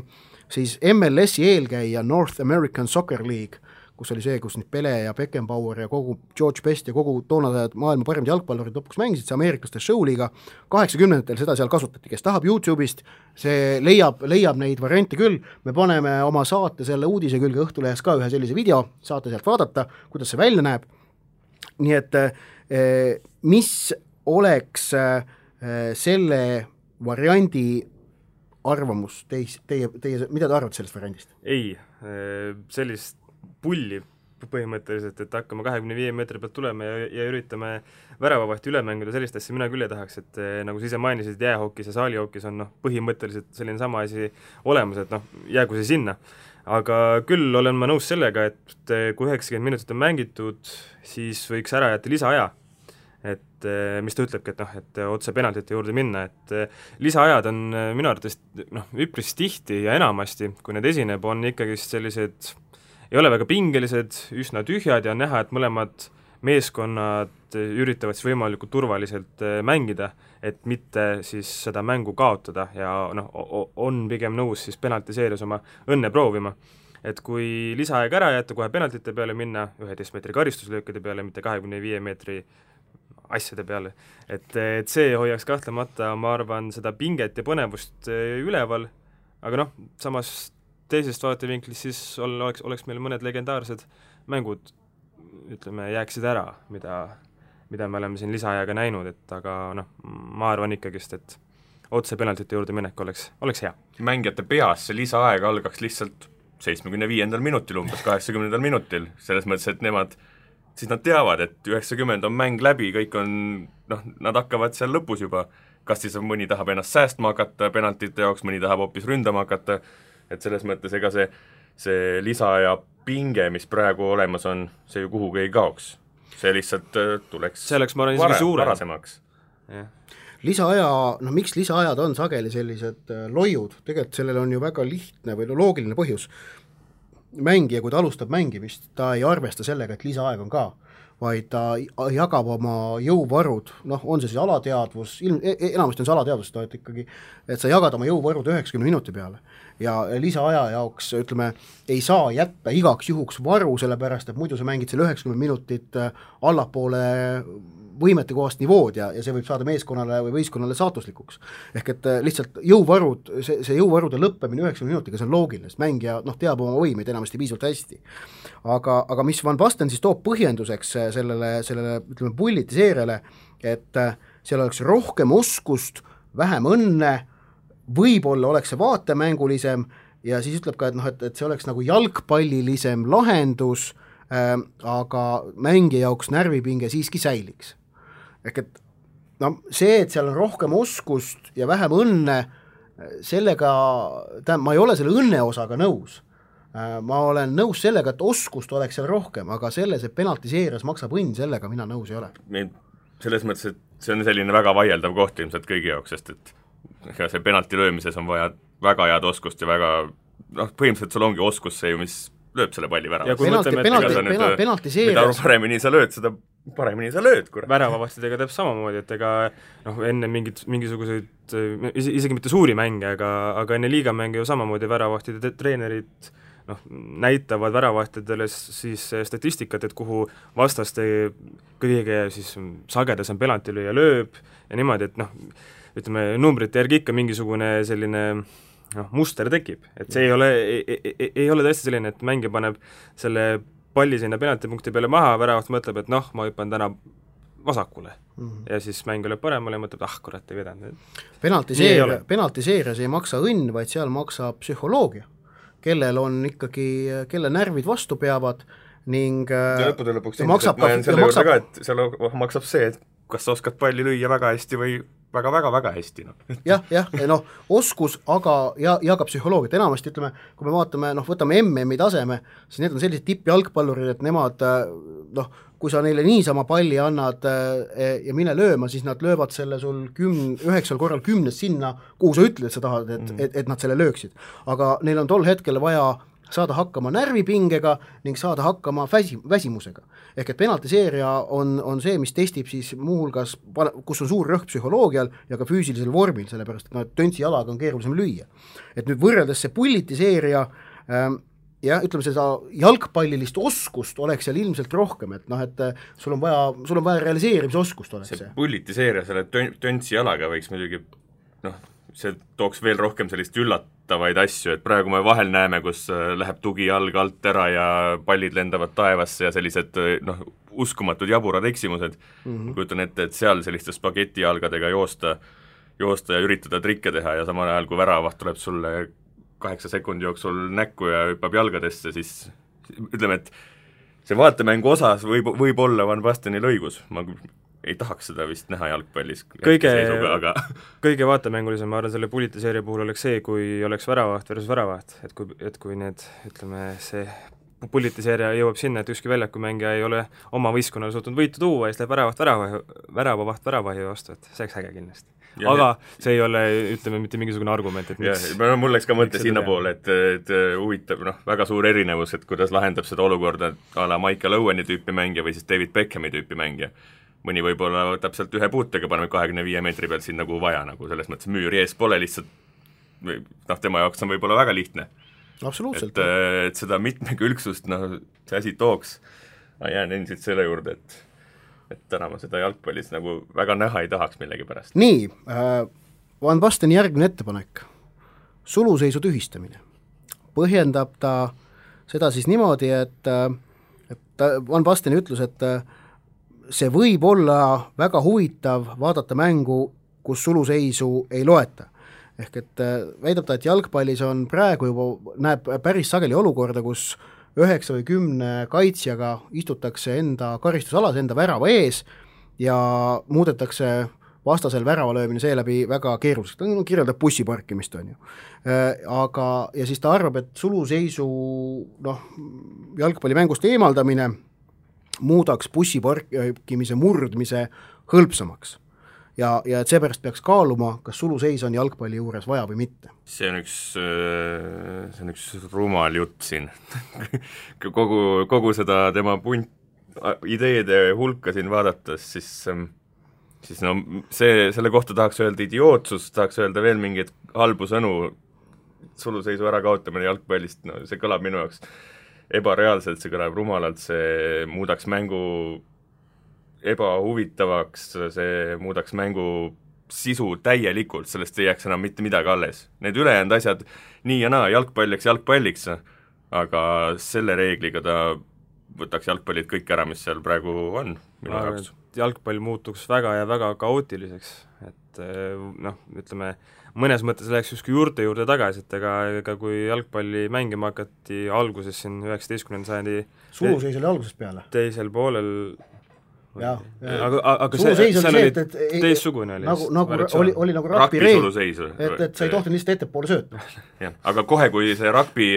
siis MLS-i eelkäija North American Soccer League, kus oli see, kus nüüd Pele ja Beckenbauer ja kogu George Best ja kogu toonased maailma parimad jalgpallurid lõpuks mängisid, see ameeriklaste showliiga, 80-ndatel seda seal kasutati, kes tahab YouTube'ist, see leiab neid variante küll, me paneme oma saate selle uudise külge Õhtulehes ka ühe sellise video, saate sealt vaadata, kuidas see välja näeb. Nii et mis oleks selle variandi arvamus, teie, mida te arvate sellest variandist? Ei, sellist pulli põhimõtteliselt, et hakkame 25 meetri pealt tulema ja üritame väravavahti üle mängida, sellist asja mina küll ei tahaks, et nagu sa ise mainisid, jäähokis ja saalihokis on põhimõtteliselt selline sama asi olemas, et jäägu see sinna. Aga küll olen ma nõus sellega, et kui 90 minutit on mängitud, siis võiks ära jätta lisaaja. Et mis ta ütlebki, et otse penaltite juurde minna, et lisaajad on minu arvates üpris tihti ja enamasti, kui need esineb, on ikkagi sellised, ei ole väga pingelised, üsna tühjad ja on näha, et mõlemad meeskonnad üritavad siis võimalikult turvaliselt mängida, et mitte siis seda mängu kaotada ja on pigem nõus siis penaltiseerias oma õnne proovima. Et kui lisaaeg ära jätta, kohe penaltite peale minna, 11 meetri karistuslöökide peale, mitte 25 meetri asjade peale, et see hoiaks kahtlemata, ma arvan, seda pinget ja põnevust üleval, aga samas teisest vaatevinklist siis oleks meil mõned legendaarsed mängud, ütleme, jääksid ära, mida me oleme siin lisaajaga näinud, et aga ma arvan ikkagist, et otse penaltite juurde minek oleks hea. Mängijate peas see lisaaeg algaks lihtsalt 75. minutil, umbes 80. minutil, selles mõttes, et nad teavad, et 90 on mäng läbi, kõik on, nad hakkavad seal lõpus juba, kas siis mõni tahab ennast säästma hakata penaltite jaoks, mõni tahab hoopis ründama hakata, et selles mõttes ega see lisaaja pinge, mis praegu olemas on, see ju kuhugi ei kaoks. See lihtsalt tuleks varasemaks. Lisaaja, miks lisaajad on sageli sellised loiud, tegelikult sellel on ju väga lihtne või loogiline põhjus. Mängija, kui ta alustab mängimist, ta ei arvesta sellega, et lisaaeg on ka. vaid ta jagab oma jõuvarud, noh, on see siis alateadvus, enamasti on see alateadvus, et ikkagi, et sa jagad oma jõuvarud 90 minuti peale ja lisaaja jaoks, ütleme, ei saa jätta igaks juhuks varu, sellepärast, et muidu sa mängid selle 90 minutit allapoole võimetekohast nivood ja see võib saada meeskonnale või võistkonnale saatuslikuks. Ehk et lihtsalt jõuvarud, see jõuvarude lõppemine 90 minutiga, see on loogiline, sest mängija teab oma võimeid enamasti piisavalt hästi. Aga mis Van Basten siis toob põhjenduseks sellele ütleme, pullitiseeriale, et seal oleks rohkem oskust, vähem õnne, võib-olla oleks see vaatemängulisem ja siis ütleb ka, et see oleks nagu jalgpallilisem lahendus, aga mängija jaoks närvipinge siiski säiliks. Ehk et see, et seal on rohkem oskust ja vähem õnne, sellega, ma ei ole selle õnne osaga nõus. Ma olen nõus sellega, et oskust oleks seal rohkem, aga selles, et penaltiseerias maksab õnn, sellega mina nõus ei ole. Selles mõttes, et see on selline väga vaieldav koht ilmselt kõigi jaoks, sest et see penalti löömises on vaja väga head oskust ja väga, põhimõtteliselt sul ongi oskus see ju, mis lööb selle palli väravast. Mida paremini sa lööd, seda paremini sa lööd, kurat. Väravavastidega teeb samamoodi, et ega enne mingisuguseid, isegi mitte suuri mänge, aga enne liigamänge ju samamoodi väravahtide treenerid näitavad väravahtidele siis statistikat, et kuhu vastaste kõige siis sagedasem penaltilööja lööb ja niimoodi, et ütleme, numbrite järgi ikka mingisugune selline muster tekib, et see ei ole tõesti selline, et mängija paneb selle palli sinna penaltipunkti peale maha, väravast mõtleb, et ma hüppan täna vasakule ja siis mäng lööb paremale ja mõtleb, kurat, ei vedanud. Penaltiseerias ei maksa õnn, vaid seal maksab psühholoogia, kellel on ikkagi, kelle närvid vastu peavad ning ja lõpuks ma jään selle juurde ka, et seal maksab see, et kas sa oskad palli lüüa väga hästi või väga-väga-väga hästi. Oskus, aga ja ka psühholoogiat, enamasti ütleme, kui me vaatame, võtame MM-i taseme, siis need on sellised tippjalgpallurid, et nemad, kui sa neile niisama palli annad ja mine lööma, siis nad löövad selle sul 9 korral 10 sinna, kuhu sa ütled, et sa tahad, et nad selle lööksid. Aga neil on tol hetkel vaja saada hakkama närvipingega ning saada hakkama väsimusega. Ehk et penaltiseeria on see, mis testib siis muuhulgas, kus on suur rõhk psühholoogial ja ka füüsilisel vormil, sellepärast et töntsi jalaga on keerulisem lüüa. Et nüüd võrreldes see pullitiseeria ja ütleme, seda jalgpallilist oskust oleks seal ilmselt rohkem, et sul on vaja realiseerimisoskust oleks see. Pullitiseeria selle töntsi jalaga võiks muidugi, see tooks veel rohkem sellist üllatavaid asju, et praegu me vahel näeme, kus läheb tugi jalg alt ära ja pallid lendavad taevasse ja sellised uskumatud jaburad eksimused. Kujutan ette, et seal selliste spagetijalgadega joosta ja üritada trikke teha ja samal ajal, kui väravaht tuleb sulle 8 sekundi jooksul näkku ja hüppab jalgadesse, siis ütleme, et see vaatemängu osas võib olla Van Bastenil õigus, ma ei tahaks seda vist näha jalgpallis. Kõige vaatemängulisem, ma arvan, selle pullitiseeria puhul oleks see, kui oleks väravaht versus väravaht, et kui need, ütleme, see pullitiseeria jõuab sinna, et ükski väljakumängija ei ole oma võistkonnale suutnud võitu tuua ja siis läheb väravavaht väravahi vastu, et see oleks äge kindlasti. Aga see ei ole, ütleme, mitte mingisugune argument, et miks... Mul läks ka mõte sinna poole, et huvitav, väga suur erinevus, et kuidas lahendab seda olukorda a la Michael Owen'i tüüpi mängija või siis David Beckhami tüüpi mängija. Mõni võib-olla võtab sealt ühe puutega, paneme 25 meetri pealt siin nagu vaja, nagu selles mõttes müüri ees pole lihtsalt, tema jaoks on võib-olla väga lihtne. Absoluutselt. Et seda mitmekülgsust, see asi tooks, ma jään endiselt selle juurde, et täna ma seda jalgpallis nagu väga näha ei tahaks millegi pärast. Nii, Van Basteni järgmine ettepanek, suluseisu tühistamine. Põhjendab ta seda siis niimoodi, et Van Basteni ütlus, et see võib olla väga huvitav vaadata mängu, kus suluseisu ei loeta. Ehk et väidab ta, et jalgpallis on praegu juba, näeb päris sageli olukorda, kus 9 või 10 kaitsjaga istutakse enda karistusalas, enda värava ees ja muudetakse vastasel väravalöömine seeläbi väga keeruliseks. Ta kirjeldab bussiparkimist, on ju. Ja siis ta arvab, et suluseisu jalgpallimängust eemaldamine muudaks bussiparkimise murdmise hõlpsamaks. Ja et seepärast peaks kaaluma, kas suluseis on jalgpalli juures vaja või mitte. See on üks rumal jutt siin. kogu seda tema ideede hulka siin vaadates, siis no selle kohta tahaks öelda idiootsus, tahaks öelda veel mingeid halbu sõnu, suluseisu ärakaotamine jalgpallist, no see kõlab minu jaoks ebareaalselt, see kõlab rumalalt, see muudaks mängu ebahuvitavaks, see muudaks mängu sisu täielikult, sellest ei jääks enam mitte midagi alles. Need ülejäänud asjad, nii ja naa, jalgpalliks, aga selle reegliga ta võtaks jalgpallid kõik ära, mis seal praegu on minu jaoks. Jalgpall muutuks väga ja väga kaootiliseks, et noh, ütleme, mõnes mõttes läheks justkui juurde tagasi, et ega kui jalgpalli mängima hakati alguses siin 19. sajandi suluseis oli algusest peale. Teisel poolel aga suluseis see oli oli teissugune oli nagu rugby suluseis, et sa ei tohtinud lihtsalt ettepoole sööta. Jah, aga kohe, kui see rugby,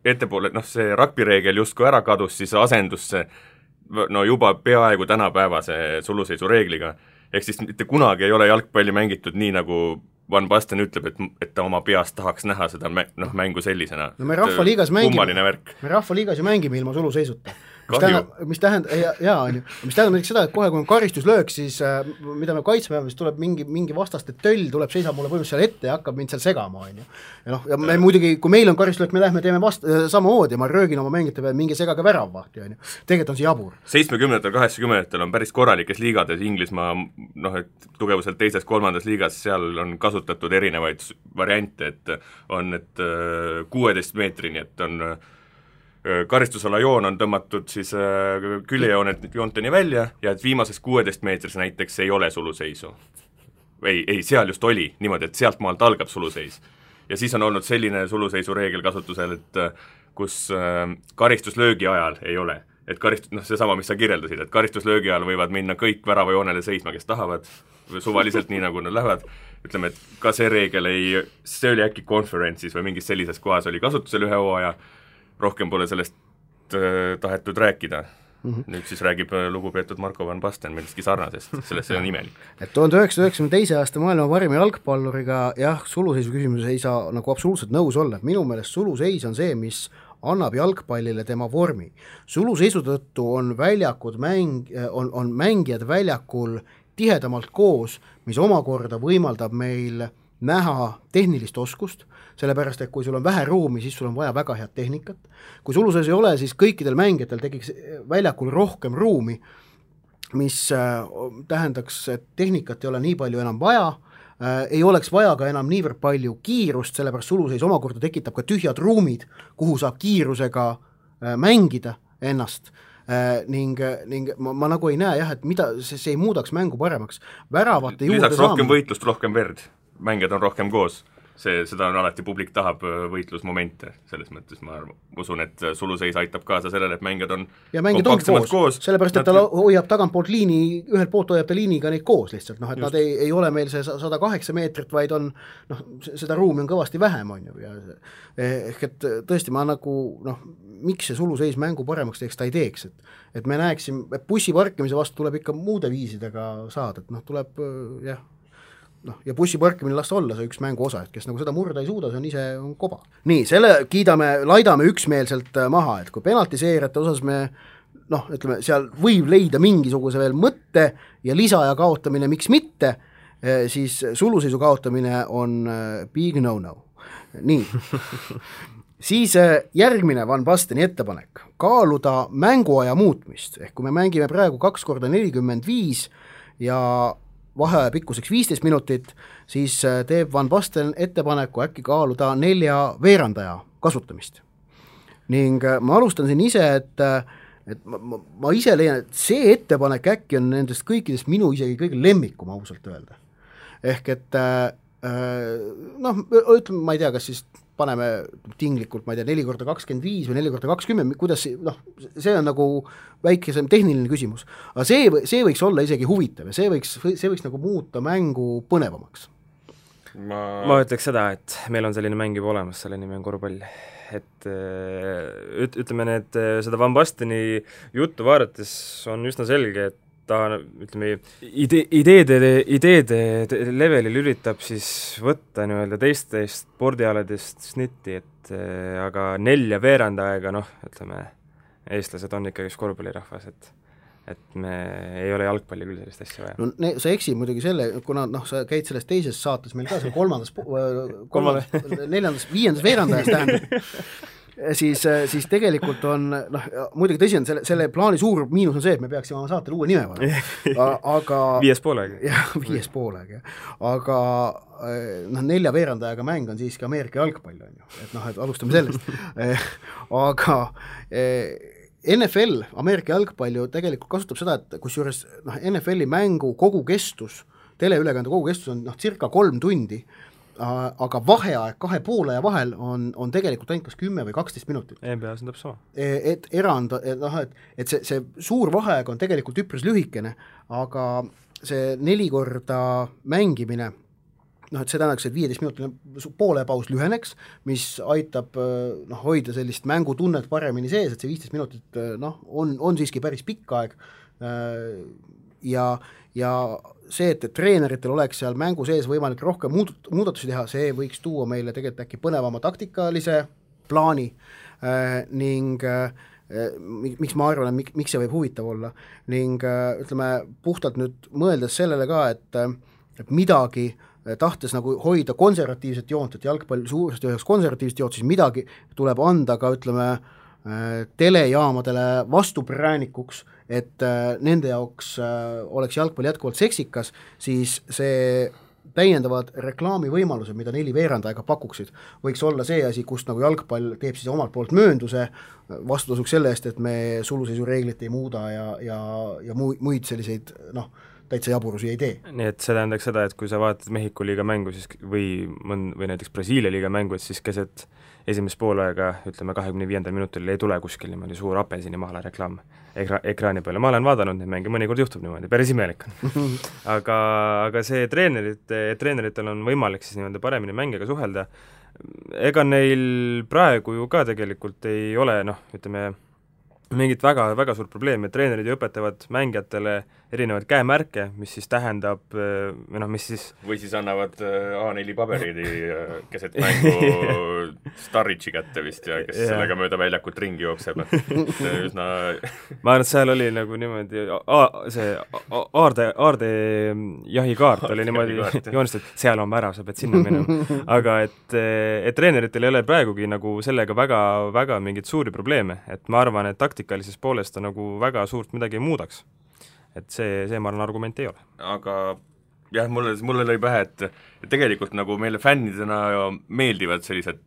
ettepoole, see rugby reegel justkui ära kadus, siis asendus see no juba peaaegu tänapäevase suluseisu reegliga. Ehk siis mitte kunagi ei ole jalgpalli mängitud nii, nagu Van Basten ütleb, et ta oma peast tahaks näha seda mängu sellisena. No me Rahvaliigas ju mängime ilma suluseisuta. Mis tähendab näiteks seda, et kohe kui on karistuslöök, siis mida me kaitsme, siis tuleb mingi vastaste töll, seisab mulle põhimõtteliselt seal ette ja hakkab mind seal segama, on ju. Ja me muidugi, kui meil on karistuslöök, me lähme teeme samamoodi ja ma röögin oma mängite peale mingi segage väravvahti, on ju. Tegelikult on see jabur. 70-ndatel, 80-ndatel on päris korralikes liigades Inglismaa, et tugevuselt teises, kolmandas liigas, seal on kasutatud erinevaid variante, et on 16 meetrini, et on karistusala joon on tõmmatud siis küljejoonteni välja ja et viimases 16 meetris näiteks ei ole suluseisu. Ei, seal just oli niimoodi, et sealt maalt algab suluseis. Ja siis on olnud selline suluseisu reegel kasutusel, et kus karistuslöögi ajal ei ole. Et seesama, mis sa kirjeldasid, et karistuslöögi ajal võivad minna kõik väravajoonele seisma, kes tahavad, suvaliselt nii, nagu nad lähevad. Ütleme, et ka see reegel see oli äkki konferentsis või mingis sellises kohas oli kasutusel ühe hooaja, rohkem pole sellest tahetud rääkida. Nüüd siis räägib lugupeetud Marko Van Basten millestki sarnasest, sellest see on imelik. Et 1992. aasta maailma parima jalgpalluriga suluseisu küsimuses ei saa nagu absoluutselt nõus olla. Minu meelest suluseis on see, mis annab jalgpallile tema vormi. Suluseisu tõttu on mängijad väljakul tihedamalt koos, mis omakorda võimaldab meil näha tehnilist oskust, sellepärast, et kui sul on vähe ruumi, siis sul on vaja väga head tehnikat. Kui suluseis ei ole, siis kõikidel mängijatel tekiks väljakul rohkem ruumi, mis tähendaks, et tehnikat ei ole nii palju enam vaja, ei oleks vaja ka enam niivõrd palju kiirust, sellepärast suluseis omakorda tekitab ka tühjad ruumid, kuhu saab kiirusega mängida ennast. Ning ma nagu ei näe et mida see ei muudaks mängu paremaks. Väravate juurde lisaks rohkem võitlust, rohkem verd. Mängijad on rohkem koos. Seda on alati publik tahab võitlusmomente, selles mõttes ma usun, et suluseis aitab kaasa sellele, et mängijad on kompaktsemalt koos. Sellepärast, et ta hoiab tagantpoolt liini, ühelt poolt hoiab ta liiniga neid koos lihtsalt, et nad ei ole meil see 108 meetrit, vaid on, seda ruumi on kõvasti vähem, on ju. Ehk et tõesti ma nagu, miks see suluseis mängu paremaks teeks, ta ei teeks, et me näeksim, et bussi parkimise vastu tuleb ikka muude viisidega saada, et tuleb ja bussi parkimine lasta olla see üks mängu osa, et kes nagu seda murda ei suuda, see on ise koba. Nii, selle laidame üksmeelselt maha, et kui penaltiseerijate osas me, ütleme, seal võib leida mingisuguse veel mõtte ja lisaja kaotamine, miks mitte, siis suluseisu kaotamine on big no-no. Nii, siis järgmine Van Basteni ettepanek, kaaluda mänguaja muutmist, ehk kui me mängime praegu 2x45 ja vaheaja pikkuseks 15 minutit, siis teeb Van Basten ettepaneku äkki kaaluda 4 veerandaja kasutamist. Ning ma alustan siin ise, et ma ise leian, et see ettepanek äkki on nendest kõikidest minu isegi kõige lemmikum ausalt öelda. Ehk et ütleme, ma ei tea, kas siis paneme tinglikult, ma ei tea, 4x25 või 4x20, kuidas see on nagu väikesem tehniline küsimus. Aga see võiks olla isegi huvitav ja see võiks nagu muuta mängu põnevamaks. Ma ütleks seda, et meil on selline mäng juba olemas, selle nimi on korvpall. Et ütleme, seda Van Basteni juttu vaadates on üsna selge, et ta, ütleme, ideede levelil üritab siis võtta teistest spordialadest snitti, et aga 4 veerandaega, ütleme, eestlased on ikkagi korvpallirahvas, et et me ei ole jalgpalli küll sellist asja vaja. No sa eksid muidugi selle, kuna sa käid selles teises saates, meil ka seal kolmandas, neljandas, viiendas veerandajas tähendab, siis tegelikult on, muidugi tõsi on, selle plaani suur miinus on see, et me peaksime oma saatele uue nime panema, aga 5 poolega. jah, 5 poolega, aga 4 veerandajaga mäng on siiski Ameerika jalgpall, on ju, et alustame sellest aga NFL, Ameerika jalgpall ju tegelikult kasutab seda, et kusjuures NFL-i mängu kogu kestus, teleülekande kogu kestus on circa 3 tundi, aga vaheaeg 2 pooleaja vahel on tegelikult ainult kas 10 või 12 minutit. NBA-s on täpselt sama. Et erand, et see suur vaheaeg on tegelikult üpris lühikene, aga see 4 korda mängimine, et see tähendaks, et 15-minutiline poolepaus lüheneks, mis aitab hoida sellist mängutunnet paremini sees, et see 15 minutit on siiski päris pikk aeg ja see, et treeneritel oleks seal mängu sees võimalik rohkem muudatusi teha, see võiks tuua meile tegelikult äkki põnevama taktikalise plaani ning miks ma arvan, et miks see võib huvitav olla ning ütleme, puhtalt nüüd mõeldes sellele ka, et midagi tahtes nagu hoida konservatiivset joont, et jalgpall suuresti üheks konservatiivset joont, siis midagi tuleb anda ka, ütleme, telejaamadele vastupraanikuks, et nende jaoks oleks jalgpall jätkuvalt seksikas, siis see täiendavad reklaamivõimalused, mida 4 veerandajaga pakuksid, võiks olla see asi, kust nagu jalgpall teeb siis omalt poolt möönduse vastutasuks selle eest, et me suluseisu-reeglit ei muuda ja muid selliseid täitsa jaburusi ei tee. Nii et see tähendaks seda, et kui sa vaatad Mehhiko liiga mängu siis, või näiteks Brasiilia liiga mängu, et siis keset esimest poolega, ütleme 25. minutil ei tule kuskil niimoodi suur apelsini mahla reklaam ekraani peale. Ma olen vaadanud neid mänge, mõnikord juhtub niimoodi, päris imelik on. aga see treeneritel on võimalik siis niimoodi paremini mängiga suhelda. Ega neil praegu ju ka tegelikult ei ole, ütleme, mingit väga suurt probleemi, et treenerid ju õpetavad mängijatele erinevaid käemärke, mis siis tähendab, mis siis või siis annavad A4 paberidi keset mängu Starritši kätte vist ja kes sellega mööda väljakut ringi jookseb. Üsna ma arvan, et seal oli nagu niimoodi see aarde jahikaart oli niimoodi joonistatud, seal on värav, sa pead sinna minema. Aga et treeneritel ei ole praegugi nagu sellega väga mingit suuri probleeme, et ma arvan, et taktikalises poolest ta nagu väga suurt midagi ei muudaks. Et see ma arvan argument ei ole. Aga jah, mulle lõi pähe, et tegelikult nagu meile fännidena meeldivad sellised,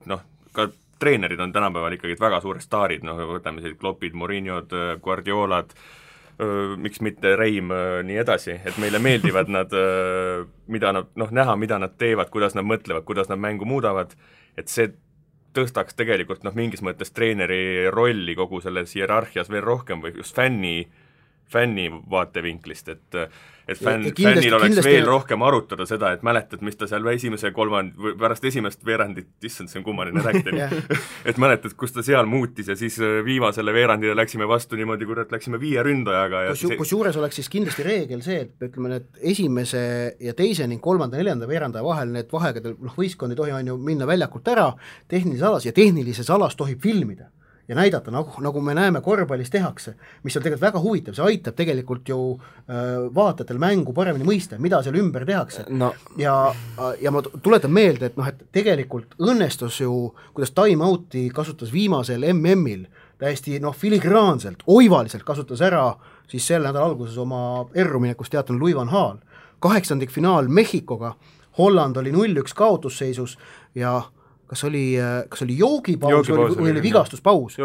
ka treenerid on tänapäeval ikkagi väga suured staarid, võtame sellised Kloppid, Mourinhod, Guardiolad, miks mitte Reim, nii edasi, et meile meeldivad nad, mida nad, näha, mida nad teevad, kuidas nad mõtlevad, kuidas nad mängu muudavad, et see tõstaks tegelikult mingis mõttes treeneri rolli kogu selles hierarhias veel rohkem või just fänni vaatevinklist, et fännil oleks veel rohkem arutada seda, et mäletad, mis ta seal pärast esimest veerandit, issand, see on kummaline rääkida, et mäletad, kus ta seal muutis ja siis viimasele veerandile läksime vastu niimoodi, kui läksime 5 ründajaga. Kusjuures oleks siis kindlasti reegel see, et ütleme, et esimese ja teise ning 3. ja 4. veerandaja vahel need vahegadel, võistkond ei tohi on ju minna väljakult ära tehnilises alas ja tehnilises alas tohib filmida ja näidata, nagu me näeme korvpallis tehakse, mis on tegelikult väga huvitav, see aitab tegelikult ju vaatajatel mängu paremini mõista, mida seal ümber tehakse. Ja ma tuletan meelde, et tegelikult õnnestus ju, kuidas time-out'i kasutas viimasel MM-il täiesti filigraanselt, oivaliselt kasutas ära siis selle nädala alguses oma erruminekust teatanud Louis van Gaal. 8. finaal Mehhikoga, Holland oli 0-1 kaotusseisus ja kas oli joogipaus või oli vigastuspaus?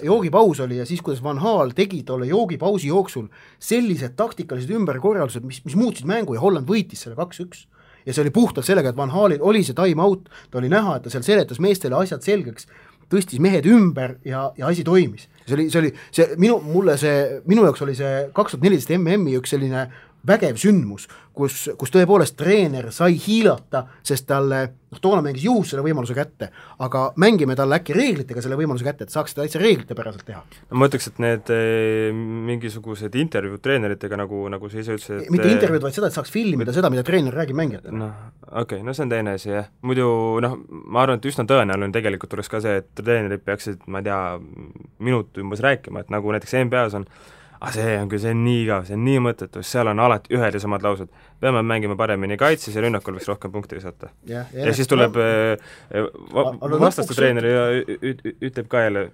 Joogipaus oli ja siis, kuidas Van Gaal tegi tolle joogipausi jooksul sellised taktikalised ümberkorraldused, mis muutsid mängu ja Holland võitis selle 2-1. Ja see oli puhtalt sellega, et Van Gaalil oli see time-out, ta oli näha, et ta seal seletas meestele asjad selgeks, tõstis mehed ümber ja asi toimis. Minu jaoks oli see 2014 MM-i üks selline vägev sündmus, kus tõepoolest treener sai hiilata, sest talle, toona mängis juhus selle võimaluse kätte, aga mängime talle äkki reeglitega selle võimaluse kätte, et saaks seda täitsa reeglite päraselt teha. No ma ütleks, et need mingisugused intervjuud treeneritega, nagu sa ise ütlesid, mitte intervjuud, vaid seda, et saaks filmida seda, mida treener räägib mängijatele. Okei, see on teine asi, jah. Muidu, ma arvan, et üsna tõenäoline tegelikult tuleks ka see, et treenerid peaksid, ma ei tea, minut umbes rääkima, et nagu näiteks NBA-s on, see on nii igav, see on nii mõttetu, seal on alati ühed ja samad laused. Peame mängima paremini kaitses ja rünnakul võiks rohkem punkti visata. Ja siis tuleb vastaste treener ja ütleb ka jälle,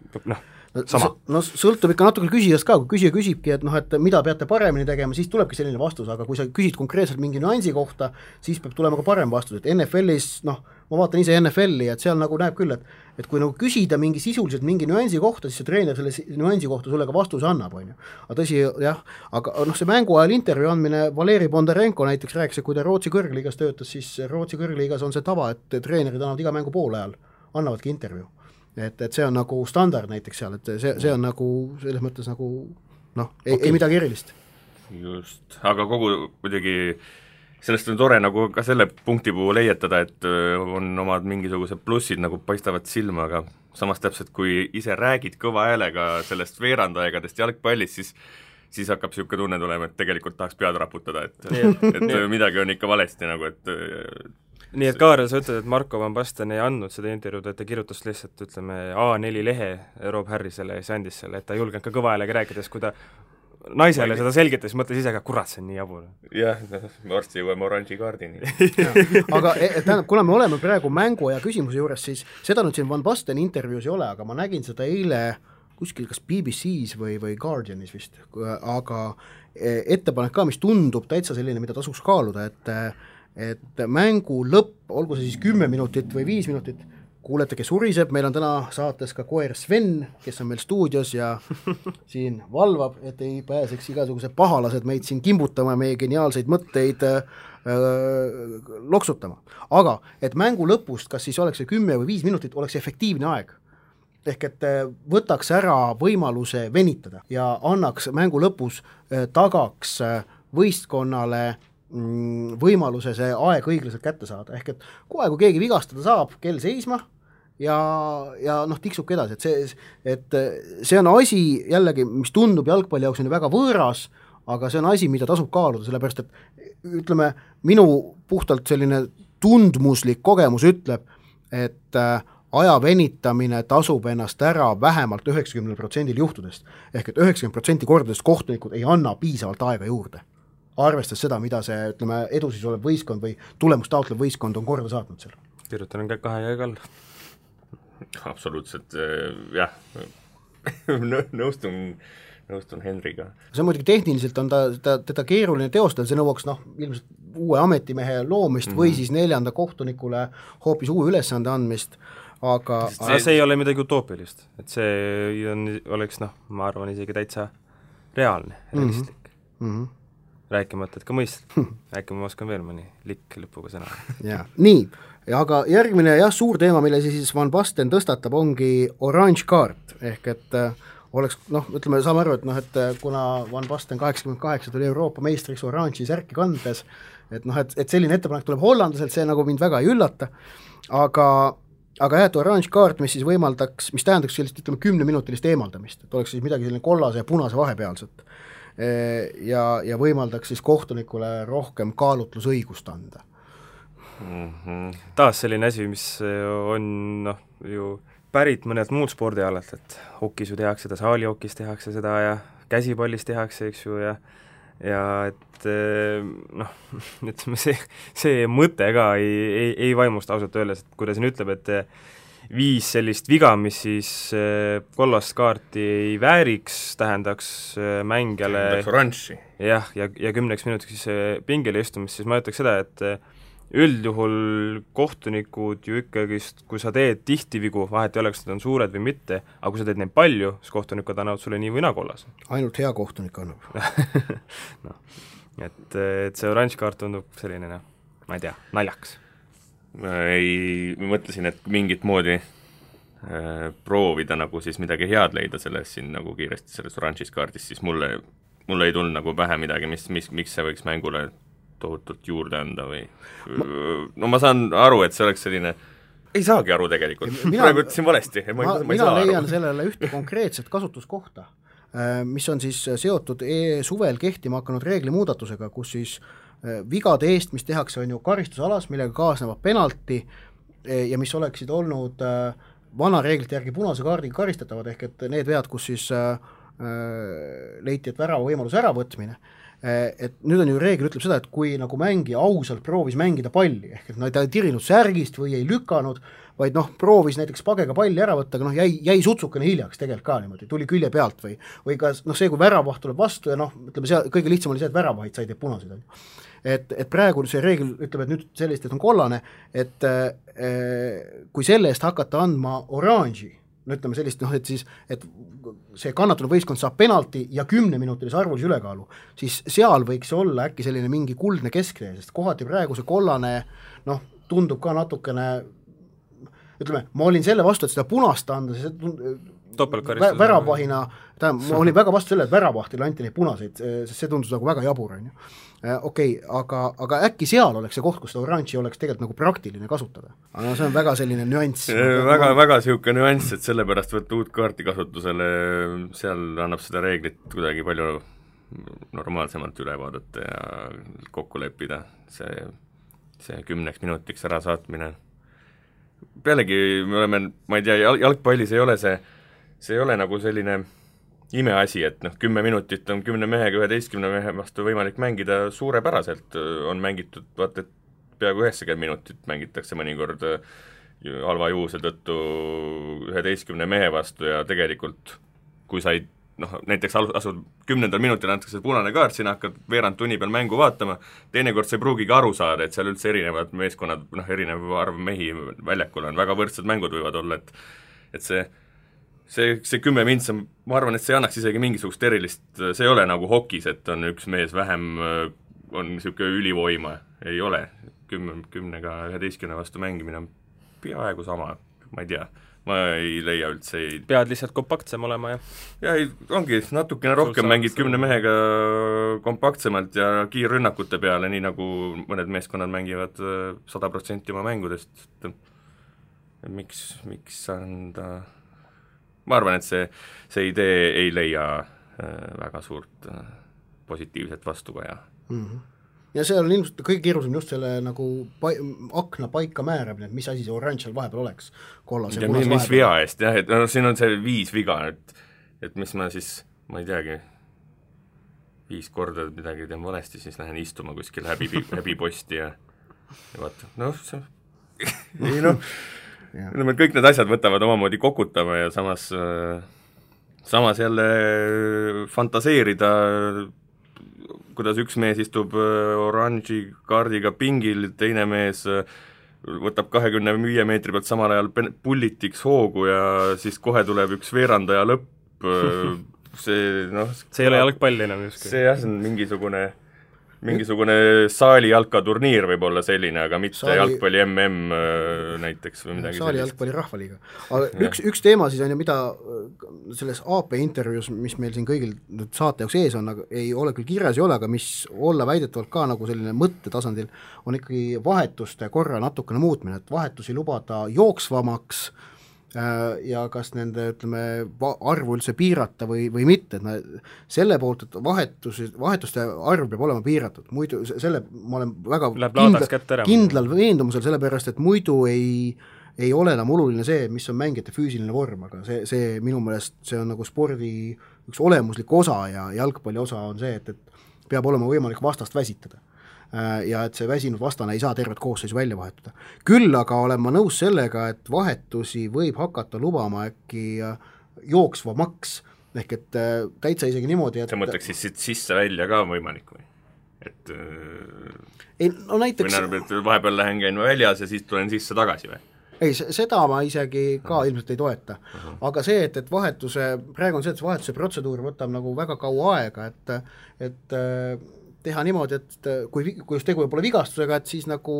sama. Sõltub ikka natuke küsijast ka, kui küsija küsibki, et mida peate paremini tegema, siis tulebki selline vastus, aga kui sa küsid konkreetselt mingi nüansi kohta, siis peab tulema ka parem vastus, et NFL-is, ma vaatan ise NFL-i, et seal nagu näeb küll, et kui nagu küsida mingi sisuliselt mingi nüansi kohta, siis see treener selle nüansi kohta sulle ka vastuse annab, on ju. Aga tõsi, jah, aga see mängu ajal intervjuu andmine, Valeri Bondarenko näiteks rääkis, et kui ta Rootsi kõrgliigas töötas, siis Rootsi kõrgliigas on see tava, et treenerid annavad iga mängu poole ajal, annavadki intervjuu. Et see on nagu standard näiteks seal, et see on nagu selles mõttes nagu ei midagi erilist. Just, aga kogu muidugi sellest on tore nagu ka selle punkti puhul leietada, et on omad mingisugused plussid nagu paistavad silma, aga samas täpselt kui ise räägid kõva häälega sellest veerandaegadest jalgpallist, siis hakkab niisugune tunne tulema, et tegelikult tahaks pead raputada, et midagi on ikka valesti nagu, et nii et Kaarel, sa ütled, et Marko Van Basten ei andnud seda intervjuud, et ta kirjutas lihtsalt, ütleme, A4 lehe Rob Harrisele ja siis andis selle, et ta julgenud ka kõva häälega rääkides, kui ta naisele seda selgitas, mõtles ise ka, kurat, see on nii jabur. Jah, varsti jõuame oranži kaardini. Aga tähendab, kuna me oleme praegu mängu ja küsimuse juures, siis seda nüüd siin Van Basten intervjuus ei ole, aga ma nägin seda eile kuskil kas BBC-s või Guardianis vist, aga ettepanek ka, mis tundub täitsa selline, mida tasuks kaaluda, et mängu lõpp, olgu see siis 10 minutit või 5 minutit, kuulete, kes uriseb, meil on täna saates ka koer Sven, kes on meil stuudios ja siin valvab, et ei pääseks igasugused pahalased meid siin kimbutama, meie geniaalseid mõtteid loksutama. Aga et mängu lõpust, kas siis oleks see 10 või 5 minutit, oleks efektiivne aeg. Ehk et võtaks ära võimaluse venitada ja annaks mängu lõpus, tagaks võistkonnale võimaluse see aeg õiglaselt kätte saada, ehk et kohe, kui keegi vigastada saab, kell seisma ja tiksubki edasi, et see on asi jällegi, mis tundub jalgpalli jaoks on väga võõras, aga see on asi, mida tasub kaaluda, sellepärast et ütleme, minu puhtalt selline tundmuslik kogemus ütleb, et aja venitamine tasub ennast ära vähemalt 90% juhtudest, ehk et 90% kordadest kohtunikud ei anna piisavalt aega juurde, arvestades seda, mida see, ütleme, edusis olev võistkond või tulemust taotlev võistkond on korda saatnud seal. Kirjutan kahe käega all. Absoluutselt, jah, nõustun Henriga. See muidugi tehniliselt on teda keeruline teostada, see nõuaks ilmselt uue ametimehe loomist või siis 4. kohtunikule hoopis uue ülesande andmist, aga see ei ole midagi utoopilist, et see oleks, ma arvan, isegi täitsa reaalne, realistlik. Rääkimata, et ka mõistlik. Rääkima oskan veel mõni likk lõpuga sõna. Ja, nii, aga järgmine suur teema, mille siis Van Basten tõstatab, ongi orange kaart, ehk et oleks, ütleme, saame aru, et kuna Van Basten 88 tuli Euroopa meistriks oranži särki kandes, et selline ettepanek tuleb hollandaselt, see nagu mind väga ei üllata, aga orange kaart, mis siis võimaldaks, mis tähendaks sellist, ütleme, 10-minutilist eemaldamist, et oleks siis midagi selline kollase ja punase vahepealset. Ja võimaldaks siis kohtunikule rohkem kaalutlusõigust anda. Taas selline asi, mis on ju pärit mõnelt muud spordialalt, et hokis ju tehakse seda, saalihokis tehakse seda ja käsipallis tehakse, eks ju, ja et ütleme, see mõte ka ei vaimusta ausalt öeldes, et kui ta siin ütleb, et 5 sellist viga, mis siis kollast kaarti ei vääriks, tähendaks mängijale jah, ja 10 minutiks siis pingile istumist, siis ma ütleks seda, et üldjuhul kohtunikud ju ikkagi, kui sa teed tihti vigu, vahet ei oleks, need on suured või mitte, aga kui sa teed neid palju, siis kohtunikud annavad sulle nii või naa kollas. Ainult hea kohtunik annab. et see oranž kaart tundub selline, ma ei tea, naljaks. Mõtlesin, et mingit moodi proovida nagu siis midagi head leida selles siin nagu kiiresti selles oranžis kaardis, siis mulle mul ei tulnud nagu pähe midagi, miks see võiks mängule tohutult juurde anda või no ma saan aru, et see oleks selline, ei saagi aru tegelikult, praegu ütlesin valesti, mina leian sellele ühte konkreetset kasutuskohta, mis on siis seotud suvel kehtima hakanud reeglimuudatusega, kus siis vigade eest, mis tehakse, on ju karistusalas, millega kaasnevad penalti ja mis oleksid olnud vana reeglite järgi punase kaardiga karistatavad, ehk et need vead, kus siis leiti, et värava võimaluse äravõtmine, et nüüd on ju reegel ütleb seda, et kui nagu mängija ausalt proovis mängida palli, ehk et ta ei tirinud särgist või ei lükanud, vaid proovis näiteks pagega palli ära võtta, aga jäi sutsukene hiljaks tegelikult ka niimoodi, tuli külje pealt või ka see, kui väravaht tuleb vastu ja ütleme, see kõige lihtsam oli see, et väravahid said punaseid. Et praegu see reegel ütleb, et nüüd sellist, et on kollane, et kui selle eest hakata andma oranži, no ütleme sellist, et siis, et see kannatanud võistkond saab penalti ja 10-minutilise arvulise ülekaalu, siis seal võiks olla äkki selline mingi kuldne kesktee, sest kohati praegu see kollane, tundub ka natukene, ütleme, ma olin selle vastu, et seda punast anda, väravahina, ma olin väga vastu selle, et väravahtile anti neid punaseid, sest see tundus nagu väga jabur, on ju. Okei, aga äkki seal oleks see koht, kus seda oranži oleks tegelikult nagu praktiline kasutada. Aga see on väga selline nüanss. Väga siuke nüanss, et sellepärast võtta uut kaarti kasutusele, seal annab seda reeglit kuidagi palju normaalsemalt üle vaadata ja kokku leppida. See 10 minutiks ära saatmine. Pealegi me oleme, ma ei tea, jalgpallis ei ole see ei ole nagu selline imeasi, et 10 minutit on 10 mehega 11 mehe vastu võimalik mängida suurepäraselt, on mängitud, vaata, et peaaegu 90 minutit mängitakse mõnikord halva juhuse tõttu 11 mehe vastu ja tegelikult kui sa ei, näiteks asud 10. minutil antakse punane kaart, sina hakkad veerand tunni peal mängu vaatama, teinekord sa ei pruugigi aru saada, et seal üldse erinevad meeskonnad, erinev arv mehi väljakul on, väga võrdsed mängud võivad olla, et see 10 mintsa, ma arvan, et see annaks isegi mingisugust erilist, see ei ole nagu hokis, et on üks mees vähem, on niisugune ülivoima, ei ole, 10-ga 11 vastu mängimine on peaaegu sama, ma ei tea, ma ei leia üldse pead lihtsalt kompaktsem olema, ja ongi natukene rohkem mängid 10 mehega kompaktsemalt ja kiirrünnakute peale, nii nagu mõned meeskonnad mängivad 100% oma mängudest, miks anda ma arvan, et see idee ei leia väga suurt positiivset vastukaja. Ja see on ilmselt kõige keerulisem just selle nagu akna paika määramine, et mis asi see oranž seal vahepeal oleks. Kollase, ja mis vea eest, jah, et siin on see 5 viga, et mis ma siis, ma ei teagi, 5 korda midagi teen valesti, siis lähen istuma kuskil häbiposti ja vaata, see ei kõik need asjad võtavad omamoodi kokutama ja samas jälle fantaseerida, kuidas üks mees istub oranži kaardiga pingil, teine mees võtab 25 meetri pealt samal ajal pullitiks hoogu ja siis kohe tuleb üks veerandaja lõpp, see ei ole jalgpall enam justkui. See on mingisugune saali jalkaturniir võib olla selline, aga mitte jalgpalli MM näiteks või midagi saali jalgpalli rahvaliiga. Aga üks teema siis on ju, mida selles AP intervjuus, mis meil siin kõigil saate jaoks ees on, aga ei ole küll kirjas ei ole, aga mis olla väidetavalt ka nagu selline mõttetasandil, on ikkagi vahetuste korra natukene muutmine, et vahetusi lubada jooksvamaks ja kas nende, ütleme, arvu üldse piirata või mitte, et selle poolt, et vahetuste arv peab olema piiratud, muidu selle ma olen väga kindlal veendumusel, sellepärast, et muidu ei ole enam oluline see, mis on mängijate füüsiline vorm, aga see minu meelest see on nagu spordi üks olemuslik osa ja jalgpalli osa on see, et peab olema võimalik vastast väsitada. Ja et see väsinud vastane ei saa tervet koosseisu välja vahetada. Küll aga olen ma nõus sellega, et vahetusi võib hakata lubama äkki jooksvamaks, ehk et täitsa isegi niimoodi, et sa mõtleks siis sisse välja ka võimalik või? Et näiteks või vahepeal lähen käin väljas ja siis tulen sisse tagasi või? Ei, seda ma isegi ka ilmselt ei toeta. Aga see, et praegu on see, et vahetuse protseduur võtab nagu väga kaua aega, et teha niimoodi, et kui just tegu pole vigastusega, et siis nagu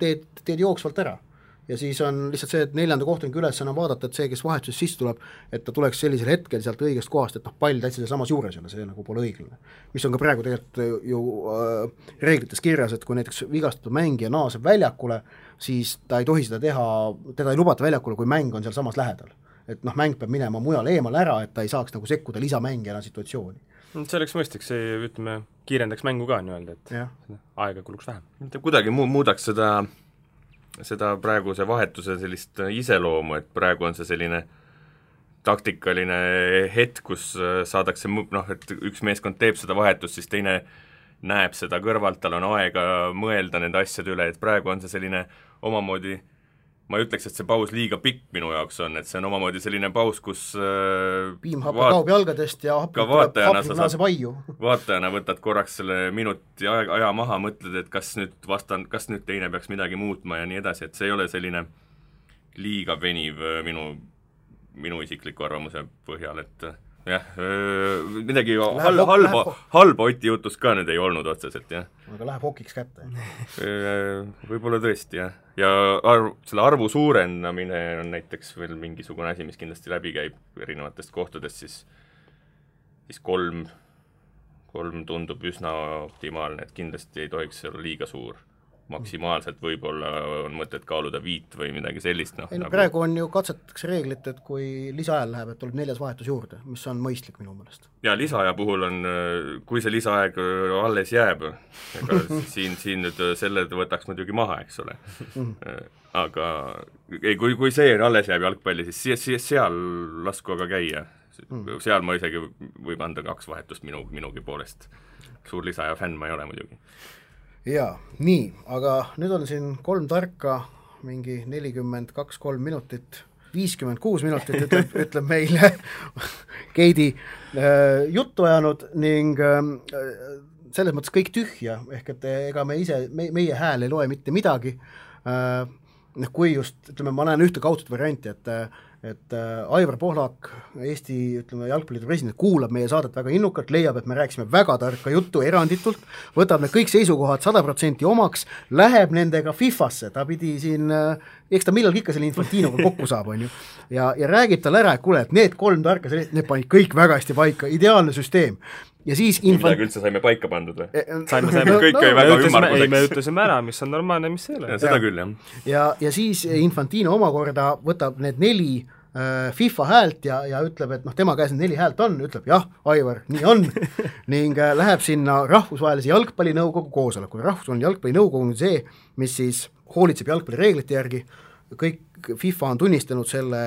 teed jooksvalt ära. ja siis on lihtsalt see, et 4. kohtuniku ülesanne on vaadata, et see, kes vahetuses sisse tuleb, et ta tuleks sellisel hetkel sealt õigest kohast, et pall täitsa samas juures jälle, see nagu pole õiglane. Mis on ka praegu tegelikult ju reeglites kirjas, et kui näiteks vigastatud mängija naaseb väljakule, siis ta ei tohi seda teha, teda ei lubata väljakule, kui mäng on seal samas lähedal. Et mäng peab minema mujal eemal ära, et ta ei saaks nagu sekkuda lisamängijana situatsiooni. See oleks mõistlik, see ütleme, kiirendaks mängu ka nii-öelda, et aega kuluks vähem. Kuidagi muudaks seda praeguse vahetuse sellist iseloomu, et praegu on see selline taktikaline hetk, kus saadakse, et üks meeskond teeb seda vahetust, siis teine näeb seda kõrvalt, tal on aega mõelda nende asjade üle, et praegu on see selline omamoodi, ma ei ütleks, et see paus liiga pikk minu jaoks on, et see on omamoodi selline paus, kus piimhappe kaob jalgadest ja hapnik naaseb aiu. Vaatajana võtad korraks selle minuti aja maha, mõtled, et kas nüüd teine peaks midagi muutma ja nii edasi, et see ei ole selline liiga veniv minu isikliku arvamuse põhjal, et jah, midagi halba Oti jutust ka nüüd ei olnud otseselt, jah. Aga läheb hokiks kätte. Võib-olla tõesti, jah. Ja selle arvu suurendamine on näiteks veel mingisugune asi, mis kindlasti läbi käib erinevatest kohtadest, siis 3 tundub üsna optimaalne, et kindlasti ei tohiks olla liiga suur. Maksimaalselt võib-olla on mõtet kaaluda 5 või midagi sellist. Praegu on ju katsetatakse reeglit, et kui lisaajal läheb, et tuleb 4. vahetus juurde, mis on mõistlik minu meelest. Ja lisaaja puhul on, kui see lisaaeg alles jääb, ega siin nüüd selle võtaks muidugi maha, eks ole. Aga kui see alles jääb jalgpalli, siis seal lasku aga käia. Seal ma isegi võib anda 2 vahetust minugi poolest. Suur lisaaja fänn ma ei ole muidugi. Jaa, nii, aga nüüd on siin 3 tarka, mingi 42-3 minutit, 56 minutit ütleb meile Keidi juttu ajanud ning selles mõttes kõik tühja, ehk et ega meie hääl ei loe mitte midagi, kui just, ütleme, ma näen ühte kaudset varianti, et Aivar Pohlak, Eesti jalgpalliliidu president, kuulab meie saadet väga innukalt, leiab, et me rääkisime väga tarka juttu eranditult, võtab need kõik seisukohad 100% omaks, läheb nendega FIFA-sse, ta pidi siin, eks ta millalgi ikka selle Infantinoga kokku saab, on ju, ja räägib tal ära, et kuule, et need 3 tarka, need panid kõik väga hästi paika, ideaalne süsteem. Ja siis midagi üldse saime paika pandud või? Saime. Kõik jäi väga ümmarguseks. Me ütlesime ära, mis on normaalne, mis ei ole. Seda küll, jah. Ja siis Infantino omakorda võtab need 4 FIFA häält ja ütleb, et tema käes need 4 häält on, ütleb jah, Aivar, nii on, ning läheb sinna rahvusvahelise jalgpallinõukogu koosolekule. Rahvusvaheline jalgpallinõukogu on see, mis siis hoolitseb jalgpallireeglite järgi, kõik FIFA on tunnistanud selle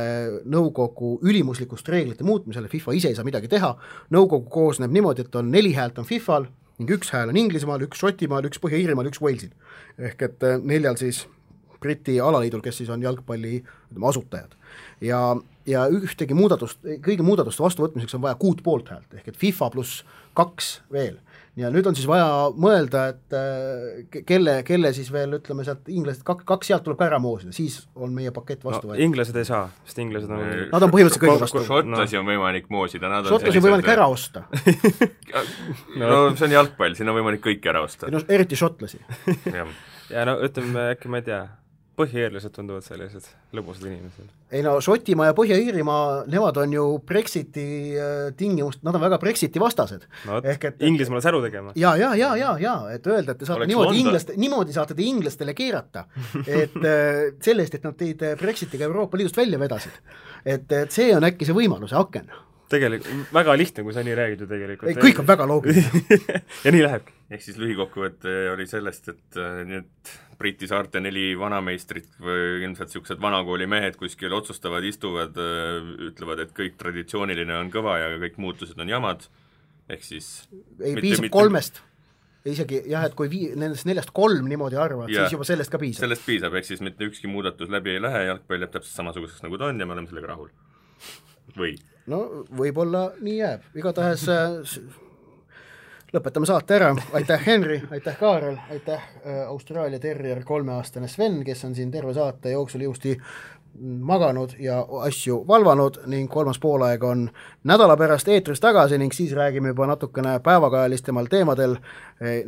nõukogu ülimuslikust reeglite muutmisele, FIFA ise ei saa midagi teha, nõukogu koosneb niimoodi, et on 4 häält on FIFAl ning 1 hääl on Inglismaal, 1 Šotimaal, 1 Põhja-Iirimaal, 1 Walesil. Ehk et 4 siis Briti alaliidul, kes siis on jalgpalli asutajad. Ja kõigi muudatuste vastuvõtmiseks on vaja 6 poolthäält, ehk et FIFA pluss 2 veel. Ja nüüd on siis vaja mõelda, et kelle siis veel, ütleme sealt inglased, 2 sealt tuleb ka ära moosida, siis on meie pakett vastu võetud. Inglased ei saa, sest inglased on... Nad on põhimõtteliselt kõige vastu. Šotlasi on võimalik moosida. Šotlasi on võimalik ära osta. No see on jalgpall, siin on võimalik kõik ära osta. No, eriti šotlasi. Ja no ütleme, äkki ma ei tea, põhja-iirlased tunduvad sellised lõbusad inimesed. Ei no, Šotimaa ja Põhja-Iirimaa, nemad on ju Brexiti tingimust, nad on väga Brexiti vastased. No, Inglismaale säru tegema. Ja, et öelda, et te saate niimoodi saate te inglastele keerata, et sellest, et nad teid Brexitiga Euroopa Liidust välja vedasid. Et see on äkki see võimaluse aken. Tegelikult väga lihtne, kui sa nii räägid ju tegelikult. Kõik on väga loogiline. Ja nii lähebki. Ehk siis lühikokkuvõte oli sellest, et nüüd Briti saarte 4 vanameistrit või ilmselt niisugused vanakooli mehed kuskil otsustavad, istuvad, ütlevad, et kõik traditsiooniline on kõva ja kõik muutused on jamad. Ehk siis... Ei piisab 3. Isegi jah, et kui nendest 4 3 niimoodi arvad, siis juba sellest ka piisab. Sellest piisab, ehk siis mitte ükski muudatus läbi ei lähe, jalgpall jääb täpselt samasuguseks nagu ta on ja me oleme sellega rahul. Või? No võib-olla nii jääb. Igatahes lõpetame saate ära. Aitäh Henri, aitäh Kaarel, aitäh Austraalia Terrier 3-aastane Sven, kes on siin terve saate jooksul ilusti maganud ja asju valvanud ning 3. poolaeg on nädala pärast eetris tagasi ning siis räägime juba natukene päevakajalistemal teemadel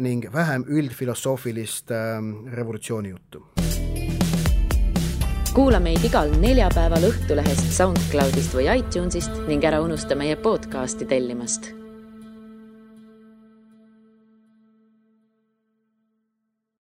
ning vähem üldfilosoofilist revolutsiooni juttu. kuula meid igal neljapäeval Õhtulehest, SoundCloudist või iTunesist ning ära unusta meie podcasti tellimast.